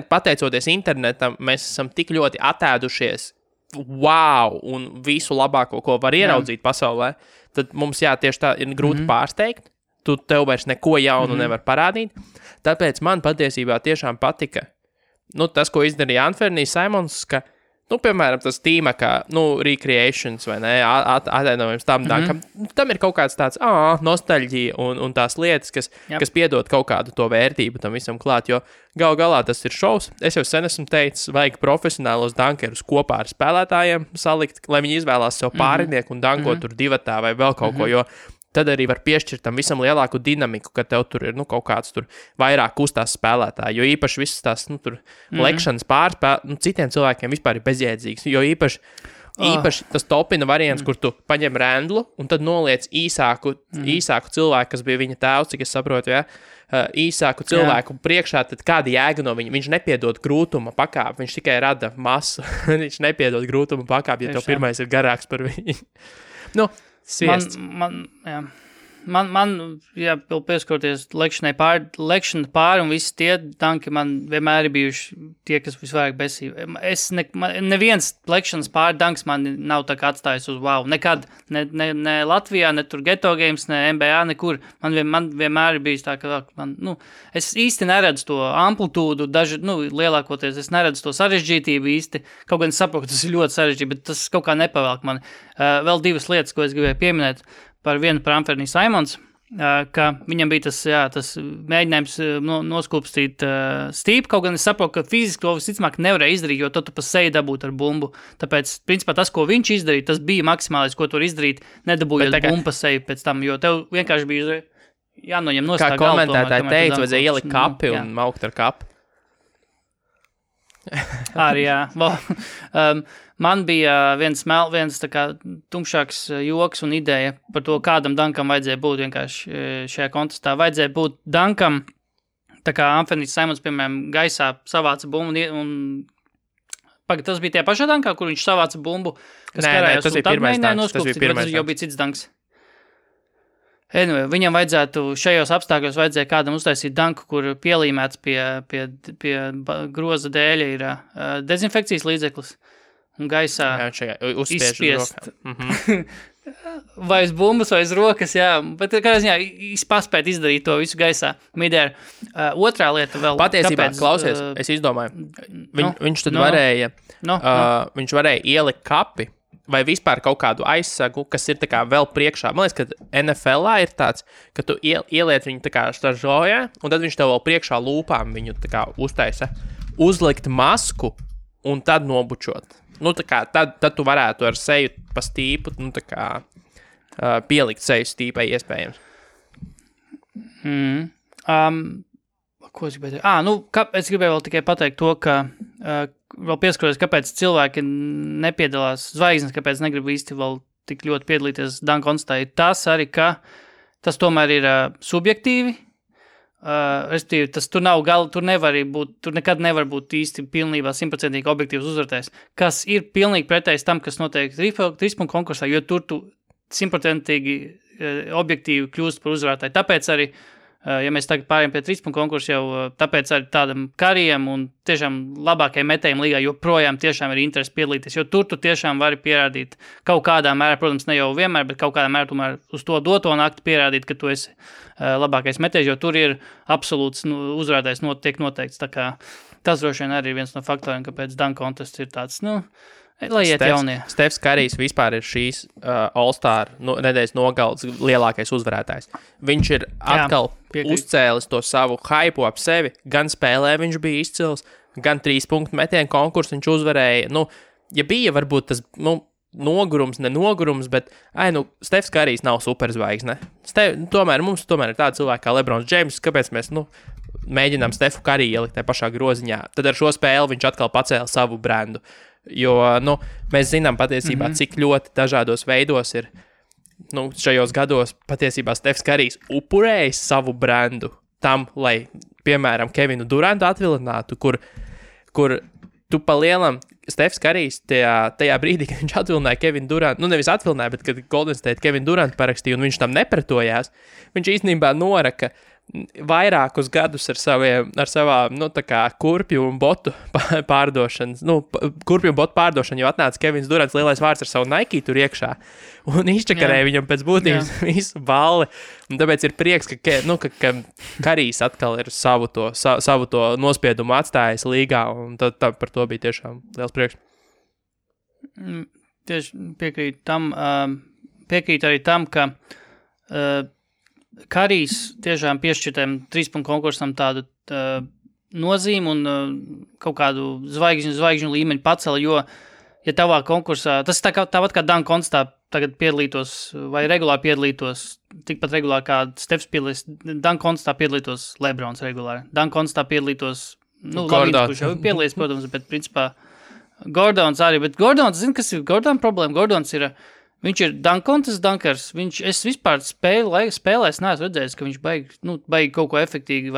Speaker 2: pateicoties internetam, mēs esam tik ļoti atēdušies wow, un visu labāko, ko var ieraudzīt pasaulē, tad mums, tieši tā ir grūti pārsteigt. Tev vairs neko jaunu nevar parādīt. Tāpēc man patiesībā tiešām patika, tas, ko izdarīja Anthony's Simons, ka, piemēram, tas tīmekā, recreations vai ne, atainojums tam dankam, tam ir kaut kāds tāds, nostalģija un tās lietas, kas piedod kaut kādu to vērtību tam visam klāt, jo gal galā tas ir šovs. Es jau sen esmu teicis, vajag profesionālos dankerus kopā ar spēlētājiem salikt, lai viņi izvēlās sev pārinieku un dankot tur divatā vai vēl kaut ko, jo tad arī var piešķirt tam visam lielāku dinamiku, ka tev tur ir, kaut kāds tur vairāk kustās spēlētāji, jo īpaši visas tās, tur lekšanas citiem cilvēkiem vispār ir bezjēdzīgs, jo īpaši tas topina variants, kur tu paņem rendlu un tad noliec īsāku cilvēku, kas bija viņa tēvs, cik es saprotu, īsāku cilvēku priekšā, tad kāda jēga no viņa? Viņš nepiedod grūtuma pakāpi, viņš tikai rada masu, viņš nepiedod grūtuma pakāpi, ja tev pirmais ir garāks par viņu.
Speaker 3: Man vēl pieskoties lekšanai pāri un visi tie danki man vienmēr ir bijuši tie, kas visvairāk besīja. Neviens lekšanas pāri danks man nav tā kā atstājis uz wow. Nekad, ne Latvijā, ne tur Geto Games, ne NBA, nekur. Man vienmēr ir bijis tā, ka es īsti neredzu to amplitūdu, lielākoties es neredzu to sarežģītību īsti. Kaut gan es saprotu, ka tas ir ļoti sarežģīti, bet tas kaut kā nepavēlk mani. Vēl divas lietas, ko es gribēju pieminēt. Par Anthony Simons, ka viņam bija tas mēģinājums noskūpstīt stīpu, kaut gan es saprotu, ka fiziski to visticamāk nevarēja izdarīt, jo tu pa seju dabūt ar bumbu. Tāpēc, principā, tas, ko viņš izdarīja, tas bija maksimālais, ko tu var izdarīt, nedabūjot bumbu pa seju pēc tam, jo tev vienkārši bija jānoņem nost tā galva.
Speaker 2: Kā komentētāji teica, vajadzēja ielikt kapi un maukt ar kapi.
Speaker 3: Arī, man bija viens tā kā tumšāks joks un ideja par to, kādam dankam vajadzēja būt vienkārši šajā kontestā. Vajadzēja būt dankam, tā kā Anthony's Simons, piemēram, gaisā savāca bumbu un tas bija tie pašā dankā, kur viņš savāca bumbu, kas karājās, un tad mēģināja noskūpstīt, bet tas jau bija cits danks. Anyway, viņam vajadzētu šajos apstākļos kādam uztaisīt danku, kur pielīmēts pie groza dēļa ir dezinfekcijas līdzeklis un gaisā izspiest. Vai uz bumbas, vai uz rokas, bet kā ziņā paspēt izdarīt to visu gaisā. Midēr. Otrā lieta vēl.
Speaker 2: Patiesībā, klausies, es izdomāju, viņš tad varēja, viņš varēja ielikt kapi, vai vispār kaut kādu aizsagu, kas ir tā kā vēl priekšā. Man liekas, ka NFL-ā ir tāds, ka tu ieliec viņu tā kā stažojā, un tad viņš tev vēl priekšā lūpām viņu tā kā uztaisa. Uzlikt masku un tad nobučot. Tā kā tad tu varētu ar seju pa stīpu, tā kā pielikt seju stīpai iespējams.
Speaker 3: Ko es gribēju teikt? Es gribēju vēl tikai pateikt to, ka vēl pieskaros, kāpēc cilvēki nepiedalās zvaigznes, kāpēc negrib īsti vēl tik ļoti piedalīties danku konstitā. Tas arī, ka tas tomēr ir subjektīvi. Respektīvi, tas tur nekad nevar būt īsti pilnībā 100% objektīvs uzvarētājs, kas ir pilnīgi pretējs tam, kas notiek trīspunktu konkursā, jo tur tu 100% objektīvi kļūst par uzvarētāju. Tāpēc arī ja mēs tagad pārējām pie trīspunktu konkursu, jau tāpēc arī tādam kariem un tiešām labākajiem metējiem līgā joprojām tiešām ir interesi piedalīties, jo tur tu tiešām vari pierādīt kaut kādā mērā, protams, ne jau vienmēr, bet kaut kādā mērā tomēr uz to doto nakti pierādīt, ka tu esi labākais metējs, jo tur ir absolūts uzvarētājs tiek noteikts. Tā kā tas droši vien arī ir viens no faktoriem, kāpēc dunk contests ir tāds, lai iet jaunie.
Speaker 2: Stefs Karijs vispār ir šīs All-Star nedēļas nogaldes lielākais uzvarētājs. Viņš ir atkal uzcēlis to savu hypu ap sevi. Gan spēlē viņš bija izcils, gan 3 punktu metienu konkursu viņš uzvarēja. Ja bija varbūt tas nenogurums, bet, Stefs Karijs nav superzvaigzne. Tomēr mums ir tādi cilvēki kā Lebrons Džeims, kāpēc mēs, mēģinām Stefu Kariju ielikt tajā pašā groziņā. Tad ar šo spēli viņš atkal pacēla savu brendu. Jo, mēs zinām patiesībā, cik ļoti dažādos veidos ir, šajos gados patiesībā Stefs Karijs upurējis savu brendu tam, lai, piemēram, Kevinu Durantu atvilinātu, kur tu pa lielam Stefs Karijs tajā brīdī, kad viņš atvilināja Kevinu Durantu, nevis atvilināja, bet kad Golden State Kevinu Durantu parakstīja un viņš tam nepretojās, viņš īstenībā noraka vairākus gadus ar savām, tā kā kurpju un botu pārdošanas, kurpju un botu pārdošanu, jo atnāca Kevins Durants lielais vārds ar savu Nike tur iekšā un izčakarēja viņam pēc būtības visu balli. Un tāpēc ir prieks, ka Karijs atkal ir savu to nospiedumu atstājis līgā, un tad par to bija tiešām liels prieks.
Speaker 3: Tieši piekrīt arī tam, ka Karijs tiešām piešķirtiem 3 konkursam tādu nozīmi un kaut kādu zvaigžņu līmeņu pacela, jo, ja tavā konkursā, tas tāpat kā Dunk Contestā tagad piedalītos vai regulāri piedalītos, tikpat regulāri kā Stefs piedalīs, Dunk Contestā piedalītos Lebrons regulāri, Dunk Contestā piedalītos, Lavīns, kurš jau piedalīs, protams, bet principā Gordons arī, bet Gordons, zini, kas ir Gordon problēma? Gordons ir viņš ir Dunk Contest dunkers. Es vispār spēlēs neesmu redzējis, ka viņš baigi kaut ko efektīvi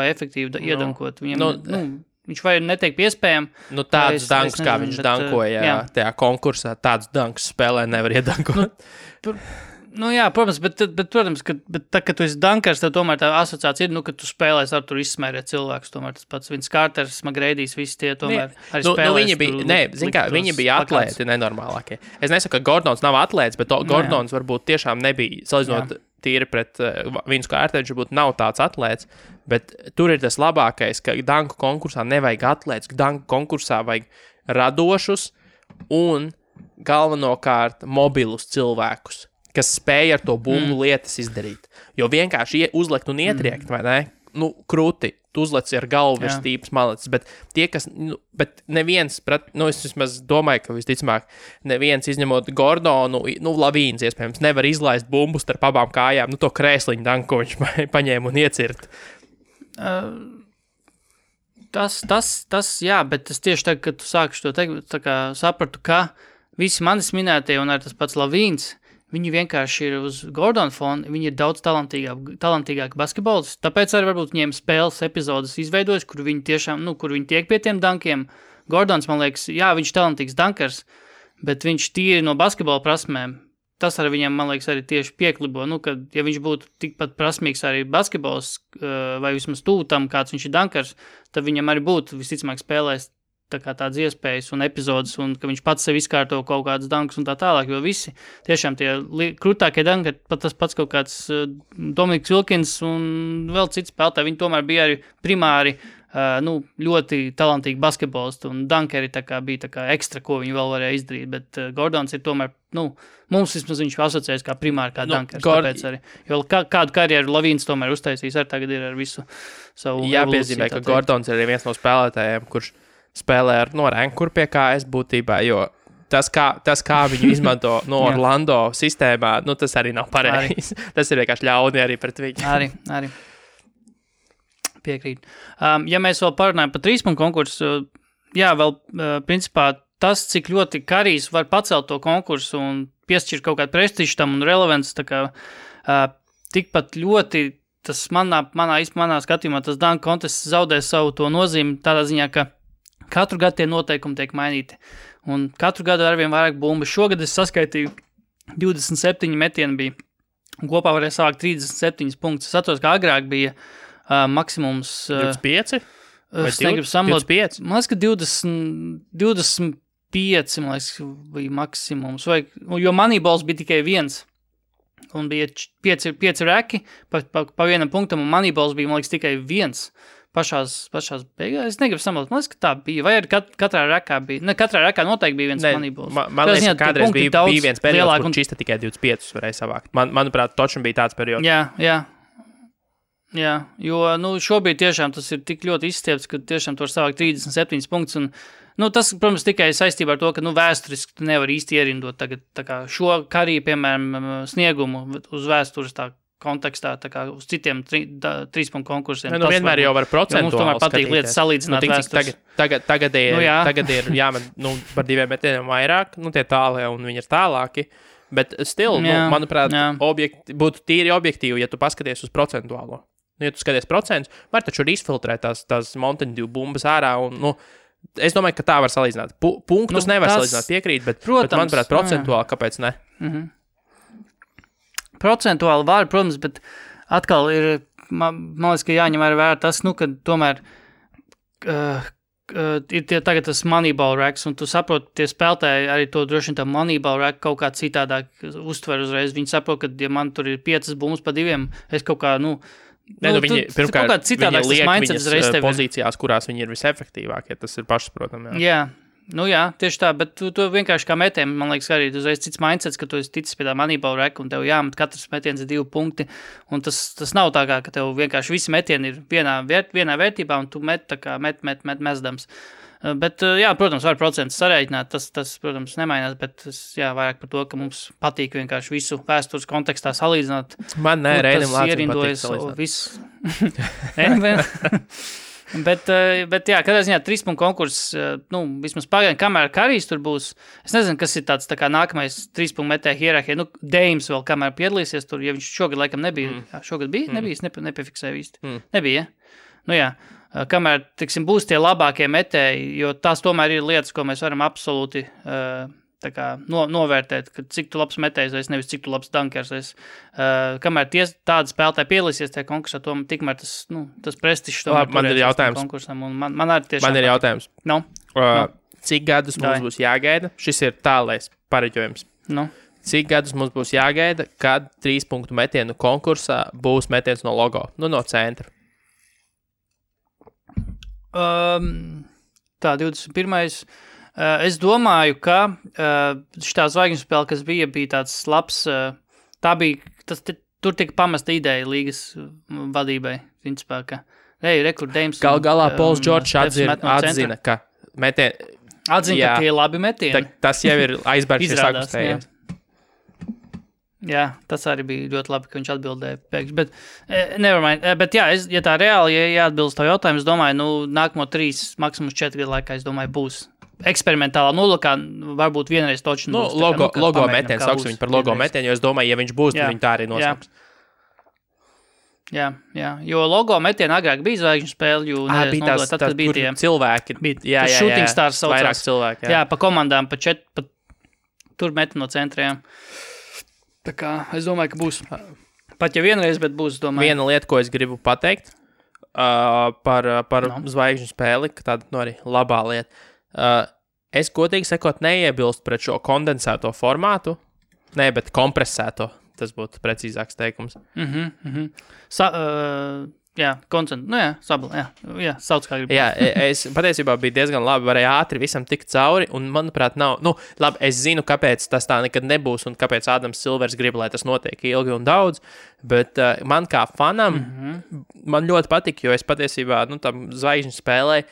Speaker 3: iedankot. Viņam, viņš vai netiek piespējami.
Speaker 2: Tādus dunks, kā viņš dankoja tajā konkursā, tādus dunks spēlē nevar iedankot.
Speaker 3: Protams, bet protams, kad tu esi dunkers, tad tomēr tā asociācija ir, ka tu spēlēs ar tur izsmērēt cilvēkus, tomēr tas pats Vince Carters, Magreidijs, visi tie tomēr arī spēlēs.
Speaker 2: Viņi bija atlēti nenormālākie. Es nesaku, ka Gordons nav atlēts, bet Gordons varbūt tiešām nebija, salīdzinot tīri pret Vince Carteru, viņš varbūt nav tāds atlēts, bet tur ir tas labākais, ka danku konkursā nevajag atlēts, ka danku konkursā vajag radošus un galvenokārt mobilus cilvēkus, kas spēja ar to bumbu lietas izdarīt. Jo vienkārši uzlikt un ietriekt, vai ne? Krūti, tu uzlec ar galvu virs tīpas maletes, bet tie, kas, bet neviens, es vismaz domāju, ka visticamāk, neviens izņemot Gordonu, Lavīns, iespējams, nevar izlaist bumbu starp abām kājām, to krēsliņu danku, ko viņš paņēma un iecirt.
Speaker 3: Tas, jā, bet tas tieši tagad, kad tu sākuši to teikt, tā kā sapratu, ka visi manis minētie un arī tas pats Lavīns, viņi vienkārši ir uz Gordona fona, viņi ir daudz talantīgāki basketbolisti, tāpēc arī varbūt viņiem spēles epizodes izveidojas, kur viņi tiešām, kur viņi tiek pie tiem dankiem. Gordons, man liekas, jā, viņš ir talantīgs dankers, bet viņš tīri no basketbola prasmēm, tas arī viņam, man liekas, arī tieši pieklibo, kad, ja viņš būtu tikpat prasmīgs arī basketbols, vai vismaz tūtam, kāds viņš ir dankers, tad viņam arī būtu visticamāk spēlēs tādas iespējas un epizodes, un ka viņš pats sev izkārto kaut kādas dankas un tā tālāk, jo visi tiešām tie krūtākie danki, tas pats kaut kāds Dominiks Wilkins un vēl cits spēlētāji, viņi tomēr bija arī primāri ļoti talantīgi basketbolisti, un dankeri bija ekstra, ko viņi vēl varēja izdarīt, bet Gordons ir tomēr, mums vismaz viņš asociējas kā primāri kā dankers, tāpēc arī, jo kādu karjeru Lavīns tomēr uztaisīs, arī tagad ir ar visu savu
Speaker 2: jāpiezīmē, ka Gordons ir viens no spēlētājiem, kurš spēlē ar rankur pie KS būtībā, jo tas, kā viņu izmanto Orlando sistēmā, tas arī nav pareizi. Tas ir vienkārši ļauni arī pret viņu.
Speaker 3: Arī. Piekrīt. Ja mēs vēl parunājam par 3 konkursu, vēl principā tas, cik ļoti Karijs var pacelt to konkursu un piešķirt kaut kādu prestižu tam un relevants, tikpat ļoti tas manā skatījumā tas Dunk Contest zaudē savu to nozīmi tādā ziņā, ka katru gadu tie noteikumi tiek mainīti. Un katru gadu arvien vairāk bumbu. Šogad es saskaitīju 27 metieni bija. Kopā varēja savākt 37 punktus. Es atceros, ka agrāk bija maksimums...
Speaker 2: 25?
Speaker 3: Es negribu samlot.
Speaker 2: 25?
Speaker 3: Man liekas, ka 25 bija maksimums. Jo Moneyballs bija tikai 1. Un bija 5 reki pa vienam punktam, un Moneyballs bija, man liekas, tikai 1. Pašās beigās. Es negribu samalt. Man liekas, ka tā bija. Vai arī katrā rekā bija. Ne, katrā rekā noteikti bija viens Moneyballs.
Speaker 2: Man liekas, ka kādreiz bija viens periods, kur čista tikai 25 varēja savākt. Manuprāt, točam bija tāds periods.
Speaker 3: Jā, jo šobrīd tiešām tas ir tik ļoti izstiepts, ka tiešām tu var savākt 37 punktus, un Nu, tas, protams, tikai saistībā ar to, ka vēsturiski tu nevar īsti ierindot tagad tā kā šo karī, piemēram, sniegumu uz vēstures tā kontekstā, tā kā uz citiem 3 punktu konkursiem.
Speaker 2: Nu, vienmēr jau var procentuāli
Speaker 3: mums tomēr patīk lietas salīdzināt vēstures.
Speaker 2: Tagad ir jāmet par 2 metieniem vairāk, tie tālie un viņi ir tālāki, bet still, manuprāt, būtu tīri objektīvi, ja tu paskaties uz procentuālo. Ja tu skaties procentus, var taču izfiltrēt tās Mountain Dew bumbas ārā un, es domāju, ka tā var salīdzināt. Punktus nevar salīdzināt, piekrīt, bet manuprāt, procentuāli, kāpēc ne?
Speaker 3: Procentuāli var, protams, bet atkal ir, man liekas, ka jāņem vērā tas, ka tomēr ir tagad tas Moneyball racks, un tu saproti, tie spēlētāji arī to droši vien tā Moneyball rack kaut kā citādāk uztver uzreiz. Viņi saprot, ka, ja man tur ir 5 bumbas pa 2, es kaut kā,
Speaker 2: viņi pirmkārt
Speaker 3: liek
Speaker 2: viņas pozīcijās, kurās viņi ir visefektīvākie, tas ir pašsaprotam.
Speaker 3: Jā, tieši tā, bet tu vienkārši kā metiem, man liekas, arī uzreiz cits mindsets, ka tu esi ticis pie tā Moneyball rack, un tev jāmet katrs metiens ir 2 punkti, un tas nav tā kā, ka tev vienkārši visi metieni ir vienā vērtībā, un tu met mesdams. Bet, protams, var procentus sarēķināt, tas, protams, nemainās, bet vairāk par to, ka mums patīk vienkārši visu vēstures kontekstā salīdzināt.
Speaker 2: Man ne, Reinim Lācim patīk salīdzināt.
Speaker 3: Bet kādā ziņā 3 punktu konkurss, vismaz pagaidām, kamēr Karijs tur būs, es nezinu, kas ir tāds tā kā nākamais 3 punktu metēja hierarhija, Deims vēl kamēr piedalīsies tur, ja viņš šogad laikam nebija, šogad bija, nebija, es nepifiksēju īsti, nebija, kamēr, tiksim, būs tie labākie metēji, jo tās tomēr ir lietas, ko mēs varam absolūti tā kā novērtēt, ka cik tu labs metējs esi, nevis cik tu labs dankers esi. Kamēr tādi spēlētāji piedalīsies tajā konkursā, tikmēr tas prestižs tomēr turēs konkursam. Man ir
Speaker 2: jautājums. Cik gadus mums būs jāgaida? Šis ir tālais pareģojums. Cik gadus mums būs jāgaida, kad 3 punktu metienu konkursā būs metiens no logo, no centra?
Speaker 3: Tā, 21. Es domāju, ka šitā zvaigžņu spēle, kas bija tāds labs, tur tika pamesta ideja līgas vadībai, principā, ka rekordējums.
Speaker 2: Galā Pols Džordžs atzina, ka
Speaker 3: ka tie labi metieni.
Speaker 2: Tas jau ir aizbērgs, ja sakustējies.
Speaker 3: Jā, tas arī bija ļoti labi, ka viņš atbildēja pēkšņi, bet nevermind. Bet jā, ja tā reāli, ja atbilst to jautājumu, es domāju, nākamo 3, maksimums 4 gadu laikā, es domāju, būs eksperimentālā nolūkā, varbūt vienreiz toču.
Speaker 2: Logo metiens, sauksim viņu par logo metienu, jo es domāju, ja viņš būs, tad viņi tā arī nosauks.
Speaker 3: Jā, jo logo metienu agrāk bija zvaigžņu spēle, jo
Speaker 2: bija tās, tad bija tie cilvēki.
Speaker 3: Jā, shooting stars saucās.
Speaker 2: Vairāk cilvēki,
Speaker 3: jā, pa komandām, tur meti no centriem. Tā kā es domāju, ka būs. Pat ja vienreiz, bet būs, domāju.
Speaker 2: Viena lieta, ko es gribu pateikt par zvaigžņu spēli, ka tāda arī labā lieta. Es godīgi sakot neiebilstu pret šo kondensēto formātu, bet kompresēto, tas būtu precīzāks teikums.
Speaker 3: Sabla, sauc kā gribu.
Speaker 2: Jā, es patiesībā biju diezgan labi, varēju ātri visam tikt cauri, un manuprāt nav, labi, es zinu, kāpēc tas tā nekad nebūs, un kāpēc Ādams Silvers grib, lai tas notiek ilgi un daudz, bet man kā fanam, man ļoti patīk, jo es patiesībā, tam zvaigžņu spēlēju,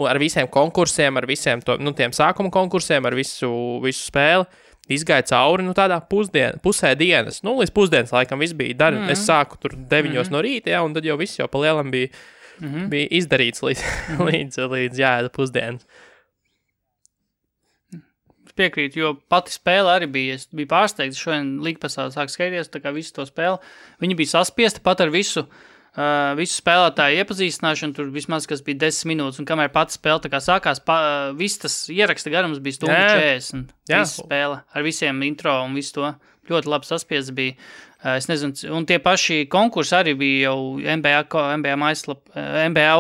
Speaker 2: ar visiem konkursiem, ar visiem tiem sākuma konkursiem, ar visu spēli, izgāja cauri, tādā pusē dienas, līdz pusdienas laikam viss bija es sāku tur 9 no rīta, un tad jau viss jau pa lielam bija izdarīts līdz jāēda pusdienas.
Speaker 3: Es piekrītu, jo pati spēle arī bija, es biju pārsteigts, šodien Līgpasā sāk skaities, tā kā visu to spēli, viņi bija saspiesti pat ar visu spēlētāju iepazīstināšanu, tur vismaz, kas bija 10 minūtes, un kamēr pati spēle tā kā sākās, viss tas ieraksta garums bija 1:40. Visa spēle ar visiem intro un visu to. Ļoti labi saspiests bija. Es nezinu, un tie paši konkursi arī bija jau NBA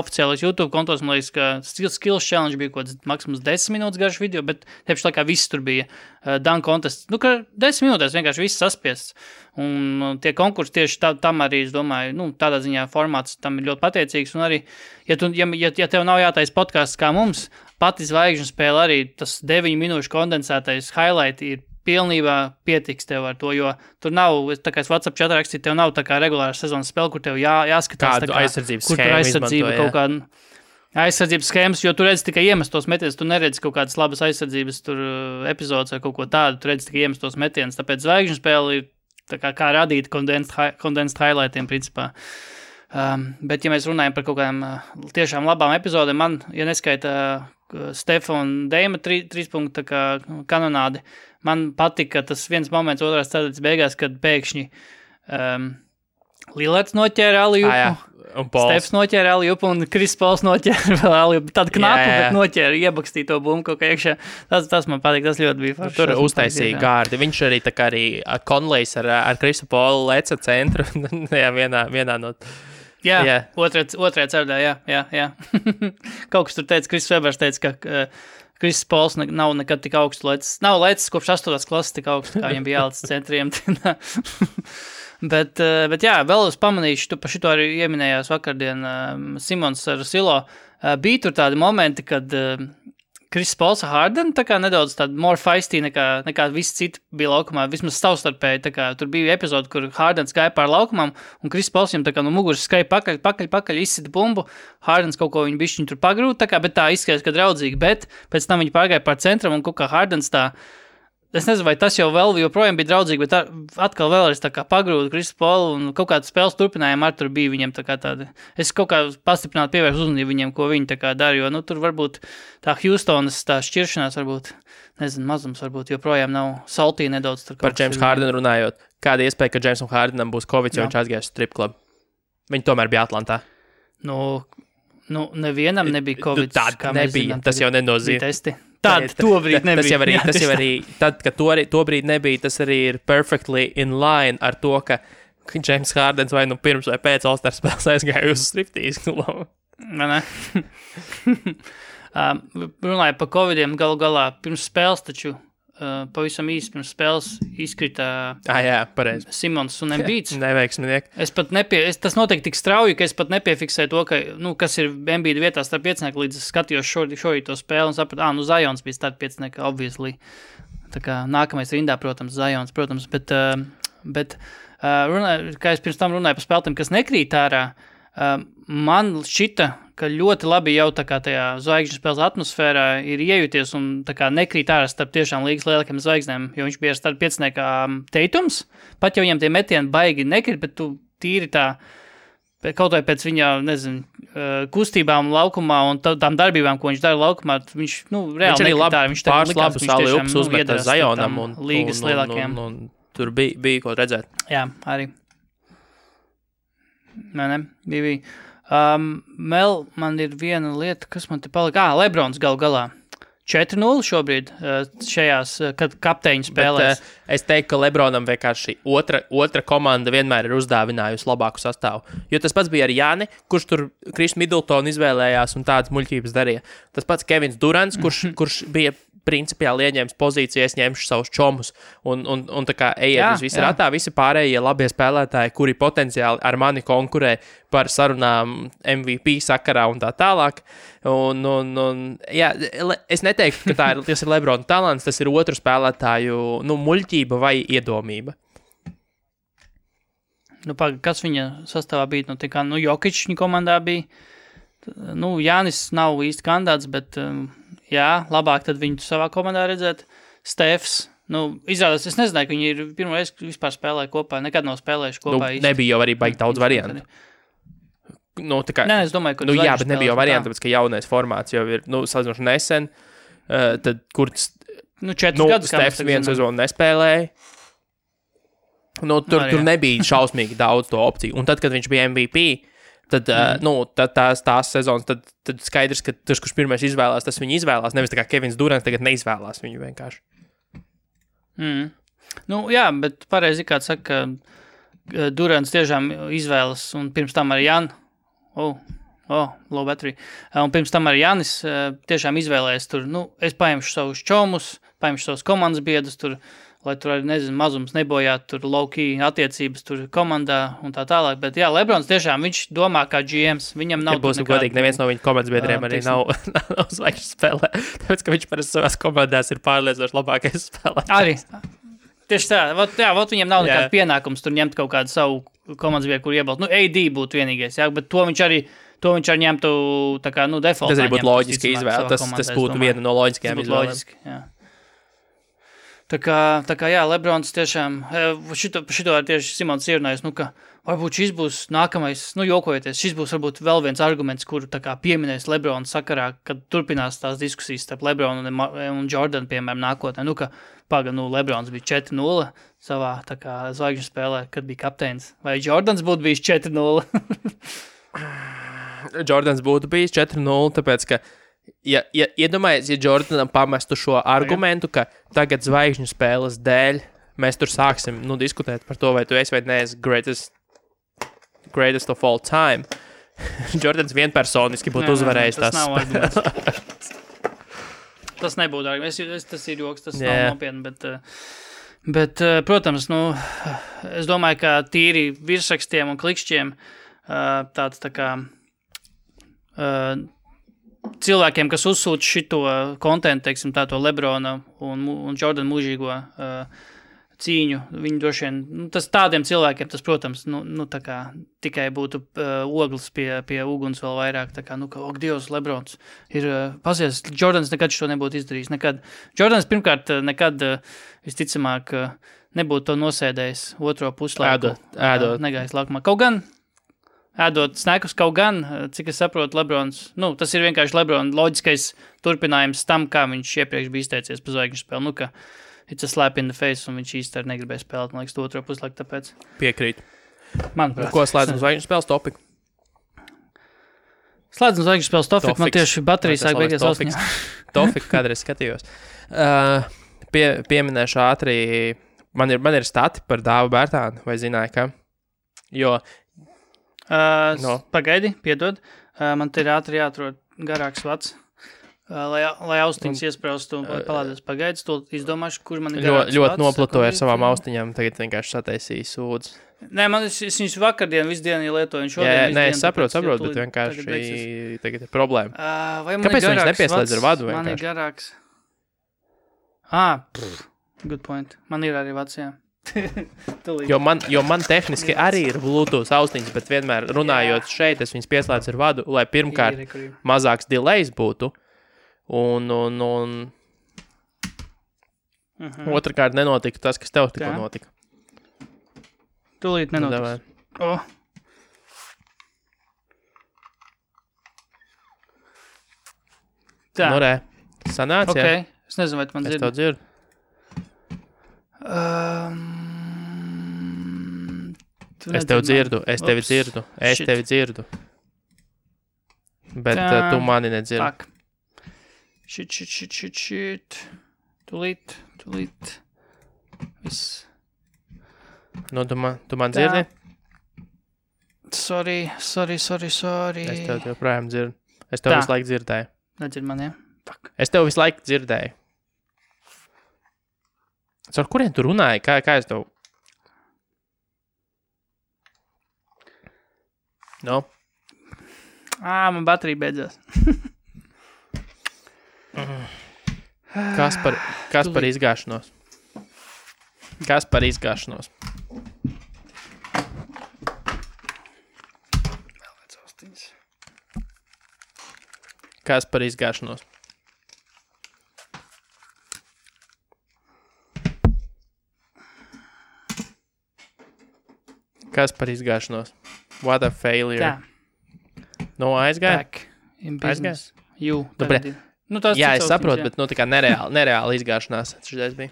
Speaker 3: oficiālais YouTube kontos, man liekas, ka Skills Challenge bija kaut kāds maksimums 10 minūtes garš video, bet tieši laikā viss tur bija dunk contest. Ka 10 minūtēs vienkārši viss saspiests. Un tie konkursi tieši tam arī, es domāju, tādā ziņā formāts tam ir ļoti pateicīgs. Un arī, ja tev nav jātais podcasts kā mums, pati zvaigžņu spēle arī tas 9 minūšu kondensētais highlight ir pilnībā pietiks tev ar to, jo tur nav, tā kā es WhatsApp chatā rakstīju, tev nav tā kā regulāra sezonas spēle, kur tev jāskatās.
Speaker 2: Kādu aizsardzības
Speaker 3: schēmu izmanto, kaut kādu. aizsardzības schēmas, jo tu redzi tikai iemestos metienus, tu neredzi kaut kādas labas aizsardzības tur epizodes vai kaut ko tādu, tu redzi tikai iemestos metienus, tāpēc zvaigžņu spēle ir tā kā radīta condensed highlightiem principā. Bet, ja mēs runājam par kaut kādām tiešām labām epizodēm, man, ja neskaita Stefa un Deima 3 punktu kanonādi, man patika tas viens moments otrās ceturtdaļas beigās, kad pēkšņi Lillards noķēra Aliupu, Stefs noķēra Aliupu un Kris Pols noķēra vēl Aliupu. Tāda knapu, bet noķēra, iebakstīja to bumbu kaut kā iekšā. Tas man patīk, tas ļoti bija forši.
Speaker 2: Tur uztaisīja gārdi. Viņš arī tā kā arī Conleys ar Krisu Polu leca centru. Jā, vienā no...
Speaker 3: Jā. Otrajā ceturdā, jā. Kaut kas tur teica, Kris Webers teica, ka Kris Pols nav nekad tik augstu lecis. Nav lecis kopš 8. klases tik augstu, kā viņam bija jālecis centriem. Bet jā, vēl es pamanīšu, tu par šito arī ieminējās vakardien Simons ar Silo. Bija tur tādi momenti, kad Kris Pols ar Harden tā kā nedaudz tāda more feisty nekā visi citi bija laukumā, vismaz savstarpēji. Tā kā tur bija epizode, kur Hardens gāja pār laukumam, un Kris Pols viņam tā kā no muguras skai pakaļ, izsita bumbu. Hardens kaut ko viņu bišķiņu tur pagrūt, tā kā, bet tā izskatās, ka draudzīgi, bet pēc tam viņi pārgāja pār centram, un kaut kā Hardens tā. Es nezinu, vai tas jau vēl joprojām bija draudzīgi, bet atkal vēlreiz tā kā pagrūda Krisu Polu un kaut kādu spēles turpinājumu ar tur bija viņiem tā kā tāda. Es kaut kā pastiprināti pievērstu uzmanību viņiem, ko viņi tā kā dara, jo, tur varbūt tā Houstonas tā šķiršanās varbūt, nezinu, mazums varbūt joprojām nav saltī nedaudz. Tur
Speaker 2: par James Harden runājot, kāda iespēja, ka Jamesam Hardenam būs Covid, jo viņš aizgājis strip club? Viņi tomēr bija Atlantā.
Speaker 3: Nevienam nebija Covid.
Speaker 2: Tā nebija, zinām, tas jau nenozīmē.
Speaker 3: Tobrīd nebija.
Speaker 2: Tas jau arī, tad, kad tobrīd nebija, tas arī ir perfectly in line ar to, ka James Hardens vai pirms vai pēc All-Star spēles aizgāja uz striptease klubu.
Speaker 3: Ne. Runāja par Covidiem galu galā pirms spēles, taču pavisam īsti pirms spēles izkrita Simons un Embiids.
Speaker 2: Neveiksminieki.
Speaker 3: Tas notiek tik strauji, ka es pat nepiefiksēju to, ka, kas ir Embiida vietā starp piecinieku, līdz es skatījos šorīt to spēli un sapratu, Zions bija starp piecinieku, obviously. Tā kā nākamais rindā, protams, Zions, bet kā es pirms tam runāju par spēlētiem, kas nekrīt ārā, man šķita, ka ļoti labi jau tā kā tajā zvaigžņu spēles atmosfērā ir iejūties un tā kā nekrīt ārā starp tiešām līgas lielākiem zvaigznēm, jo viņš bija starp pieciniekā Teitums, pat jau viņam tie metieni baigi nekrīt, bet tu tīri tā, kaut vai pēc viņa, kustībām laukumā un tām darbībām, ko viņš dara laukumā, viņš, reāli nekrīt ārā. Viņš
Speaker 2: pāris labus aliups uzmeta Zionam un
Speaker 3: līgas lielākiem.
Speaker 2: Un tur bija ko redzēt.
Speaker 3: Jā, arī. Bija. Mel, man ir viena lieta, kas man te palika. Lebrons galu galā. 4-0 šobrīd šajās, kad kapteiņu spēlēs.
Speaker 2: Es teiktu, ka Lebronam vienkārši otra komanda vienmēr ir uzdāvinājusi labāku sastāvu. Jo tas pats bija ar Jāni, kurš tur Kris Middletonu izvēlējās un tādas muļķības darīja. Tas pats Kevins Durants, kurš bija principiāli ieņēmis pozīcijas, ņemšu savus čomus un tā kā ejiet uz visu ratā, visi pārējie labie spēlētāji, kuri potenciāli ar mani konkurē par sarunām MVP sakarā un tā tālāk. Es neteiktu, ka tas ir Lebrona talants, tas ir otru spēlētāju muļķība vai iedomība.
Speaker 3: Kas viņa sastāvā bija? Jokić viņa komandā bija. Jānis nav īsti kandidāts, bet labāk tad viņu savā komandā redzēt. Stefs, izrādās, es nezināju, ka viņi ir pirmo reizi vispār spēlēja kopā, nekad nav spēlējuši kopā.
Speaker 2: Nebija jau arī baigi daudz variantu.
Speaker 3: Nē, es domāju, ka
Speaker 2: bet nebija jau variantu, tāpēc, ka jaunais formāts jau ir, salīdzinoši nesen, tad, kur
Speaker 3: 4 gadus
Speaker 2: Stefs viens sezonu nespēlēja. Tur nebija šausmīgi daudz to opciju. Un tad, kad viņš bija MVP, tad tās sezonas, tad skaidrs, ka tas, kurš pirmais izvēlās, tas viņu izvēlās. Nevis tā kā Kevins Durants tagad neizvēlās viņu vienkārši.
Speaker 3: Bet pareizi kāds saka, ka Durants tiešām izvēlas, un pirms tam arī Jan. Low battery. Un pirms tam arī Janis tiešām izvēlēs tur, es paņemšu savus čomus, paņemšu savus komandas biedrus tur, lai tur arī, mazums nebojātu tur low-key attiecības tur komandā un tā tālāk. Bet jā, Lebrons tiešām, viņš domā kā GMs, viņam nav...
Speaker 2: Ja būsim godīgi, neviens no viņa komandas biedriem arī nav zvaigžņu spēlē, tāpēc, ka viņš parasti savās komandās ir pārliecinoši labākais spēlētājs.
Speaker 3: Arī. Tieši tā, viņam nav nekāda pienākums tur ņemt kaut kādu savu komandas biedru, kur iebalst. AD būtu vienīgais, bet to viņš To viņš ar ņemtu tā kā, defaultā.
Speaker 2: Tas arī būtu loģiski izvēle. Tas būtu viena no loģiskajām izvēlēm.
Speaker 3: Loģiski, jā. Tā kā jā, Lebrons tiešām, šito arī tieši Simons ierunājis, ka varbūt šis būs nākamais, jokojoties, šis būs varbūt vēl viens arguments, kuru tā kā pieminēs Lebrona sakarā, kad turpinās tās diskusijas starp Lebronu un Jordan, piemēram, nākotnē. Lebrons bija 4-0 savā tā kā zvaigžņu spēlē, kad bija kapteinis. Vai Jordans būtu bijis 4-0?
Speaker 2: Jordans būtu bijis 4-0, tāpēc, ka iedomājies, ja Jordanam pamestu šo argumentu, ka tagad zvaigžņu spēles dēļ mēs tur sāksim diskutēt par to, vai tu esi vai neesi greatest of all time. Jordans vienpersoniski būtu uzvarējis tās spēles.
Speaker 3: Tas nebūtu arguments. Tas ir joks, tas nav nopietni, bet protams, es domāju, ka tīri virsrakstiem un klikšķiem tāds tā kā cilvēkiem, kas uzsūta šito kontentu, teiksim, to Lebrona un Jordan mūžīgo cīņu, viņi droši vien, tas tādiem cilvēkiem, tas, protams, tā kā tikai būtu ogles pie uguns vēl vairāk, tā kā, ak, Dievs, Lebrons ir pazies, Jordans nekad šo nebūtu izdarījis, nekad. Jordans pirmkārt nekad, visticamāk, nebūtu to nosēdējis otro puslaiku.
Speaker 2: Ēdot.
Speaker 3: Negājis laukumā. Kaut gan, ēdot snekus, kaut gan, cik es saprotu, Lebrons, tas ir vienkārši Lebrona loģiskais turpinājums tam, kā viņš iepriekš bija izteicies pa zvaigžņu spēli, ka it's a slap in the face, un viņš īsti arī negribēja spēlēt, man liekas, otro puslaiku, tāpēc.
Speaker 2: Piekrīt.
Speaker 3: Manuprāt.
Speaker 2: Ko slēdzam zvaigžņu spēles topiku?
Speaker 3: Slēdzam zvaigžņu spēles topiku, man tieši baterijas sāk beigās ausniņā.
Speaker 2: Topiku, kādreiz skatījos. Pieminēšu ātri, man ir stati par Dāvu Bērtānu, vai zināja, ka? Jo
Speaker 3: Pagaidi, piedod. Man te ir ātri jāatrod garāks vats, lai austiņas iespraustu un palādēs pagaidis. To izdomāšu, kur man ir garāks vats.
Speaker 2: Ļoti noplatoju ar savām austiņām, tagad vienkārši sataisīju sūdzu.
Speaker 3: Nē, es viņus vakardien, visu dienu lietoju.
Speaker 2: Es saprotu, bet vienkārši tagad ir problēma. Kāpēc viņš nepieslēdz ar vadu vienkārši?
Speaker 3: Man ir garāks. Good point. Man ir arī vats, jā.
Speaker 2: jo man tehniski arī ir Bluetooth austiņas, bet vienmēr runājot šeit, es viņas pieslēdzu ar vadu, lai pirmkārt mazāks delays būtu, un otrkārt nenotika tas, kas tev tikko notika.
Speaker 3: Tūlīt nenotiks. Tā.
Speaker 2: Sanāc,
Speaker 3: jā? Es nezinu, vai tu man dzirdi.
Speaker 2: Es tev dzirdu. Es tevi dzirdu. Bet tu mani nedzirdi.
Speaker 3: Shit. Tūlīt. Viss.
Speaker 2: Tu man dzirdi?
Speaker 3: Sorry.
Speaker 2: Es tev joprojām dzirdu. Es tev visu laiku dzirdēju.
Speaker 3: Nedzird man, jā? Fuck.
Speaker 2: Es tev visu laiku dzirdēju. Ar kuriem tu runāji? Kā es tev?
Speaker 3: Man baterija beidzās.
Speaker 2: Kas par izgāšanos?
Speaker 3: Vēl vēc austiņas.
Speaker 2: Kas par izgāšanos? Kas par izgāšanos? What a failure.
Speaker 3: Tā.
Speaker 2: Aizgāja?
Speaker 3: Back in business.
Speaker 2: Jā, es saprotu, bet tā kā nereāli izgāšanās šitais bija.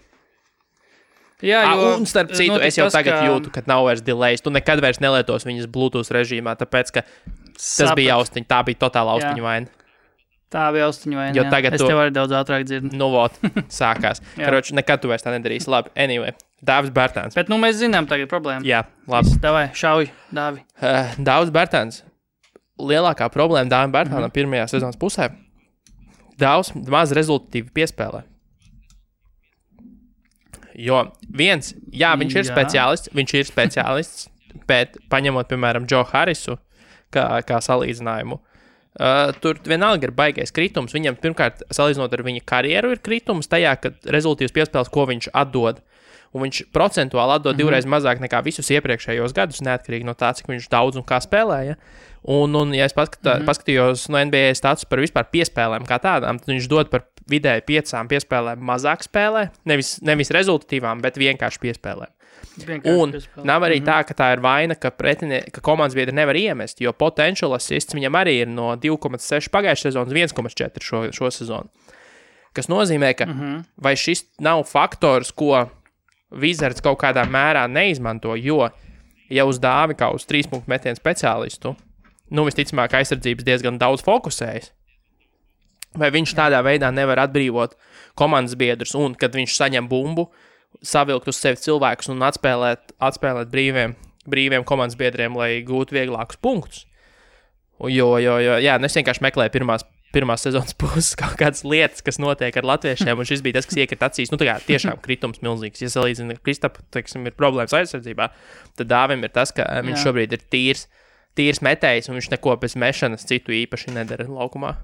Speaker 3: Jā,
Speaker 2: un starp citu, es jau tagad jūtu, ka nav vairs delays. Tu nekad vairs nelietos viņas Bluetooth režīmā, tāpēc, ka tas bija austiņa, tā bija totāla austiņa vaina.
Speaker 3: Tā bija austiņa vaina,
Speaker 2: jo tagad
Speaker 3: es tev arī daudz ātrāk dzirdu.
Speaker 2: Sākās. Karoči, nekad tu vairs tā nedarīsi. Labi, anyway. Dāvis Bērtāns.
Speaker 3: Bet mēs zinām tagad problēmu.
Speaker 2: Jā, labi.
Speaker 3: Davai, šauj, Dāvi.
Speaker 2: Dāvis Bērtāns. Lielākā problēma Dāvim Bērtānam pirmajā sezonas pusē. Dāvis maz rezultatīvi piespēlē. Jo viņš ir speciālists, bet paņemot, piemēram, Joe Harrisu kā salīdzinājumu, tur vienalga ir baigais kritums. Viņam pirmkārt, salīdzinot ar viņa karjeru, ir kritums tajā, ka rezultīvs piespēles, ko viņš atdod. un viņš procentuāli atdod divreiz mazāk nekā visus iepriekšējos gadus, neatkarīgi no tā, cik viņš daudz un kā spēlēja. Un ja es paskatījos no NBA status par vispār piespēlēm kā tādām, tad viņš dod par vidēji 5 piespēlēm mazāk spēlē, nevis rezultatīvām, bet vienkārši piespēlēm. Nav arī tā, ka tā ir vaina, ka komandas biedri nevar iemest, jo potential assists viņam arī ir no 2,6 pagājušā sezonas 1,4 šo sezonu. Kas nozīmē, ka vai šis nav faktors, ko Wizards kaut kādā mērā neizmanto, jo ja uz Dāvi kā uz 3-punktu metienu speciālistu, visticamāk aizsardzības diezgan daudz fokusējas, vai viņš tādā veidā nevar atbrīvot komandas biedrus, un kad viņš saņem bumbu, savilkt uz sevi cilvēkus un atspēlēt brīviem komandas biedriem, lai gūtu vieglākus punktus. Es vienkārši meklēju pirmās sezonas puses kaut kādas lietas, kas notiek ar latviešiem, un šis bija tas, kas iekrita acīs. Tiešām kritums milzīgs. Ja salīdzina Kristapu, ir problēmas aizsardzībā, tad Dāvim ir tas, ka viņš šobrīd ir tīrs metējs, un viņš neko bez mešanas citu īpaši nedara laukumā.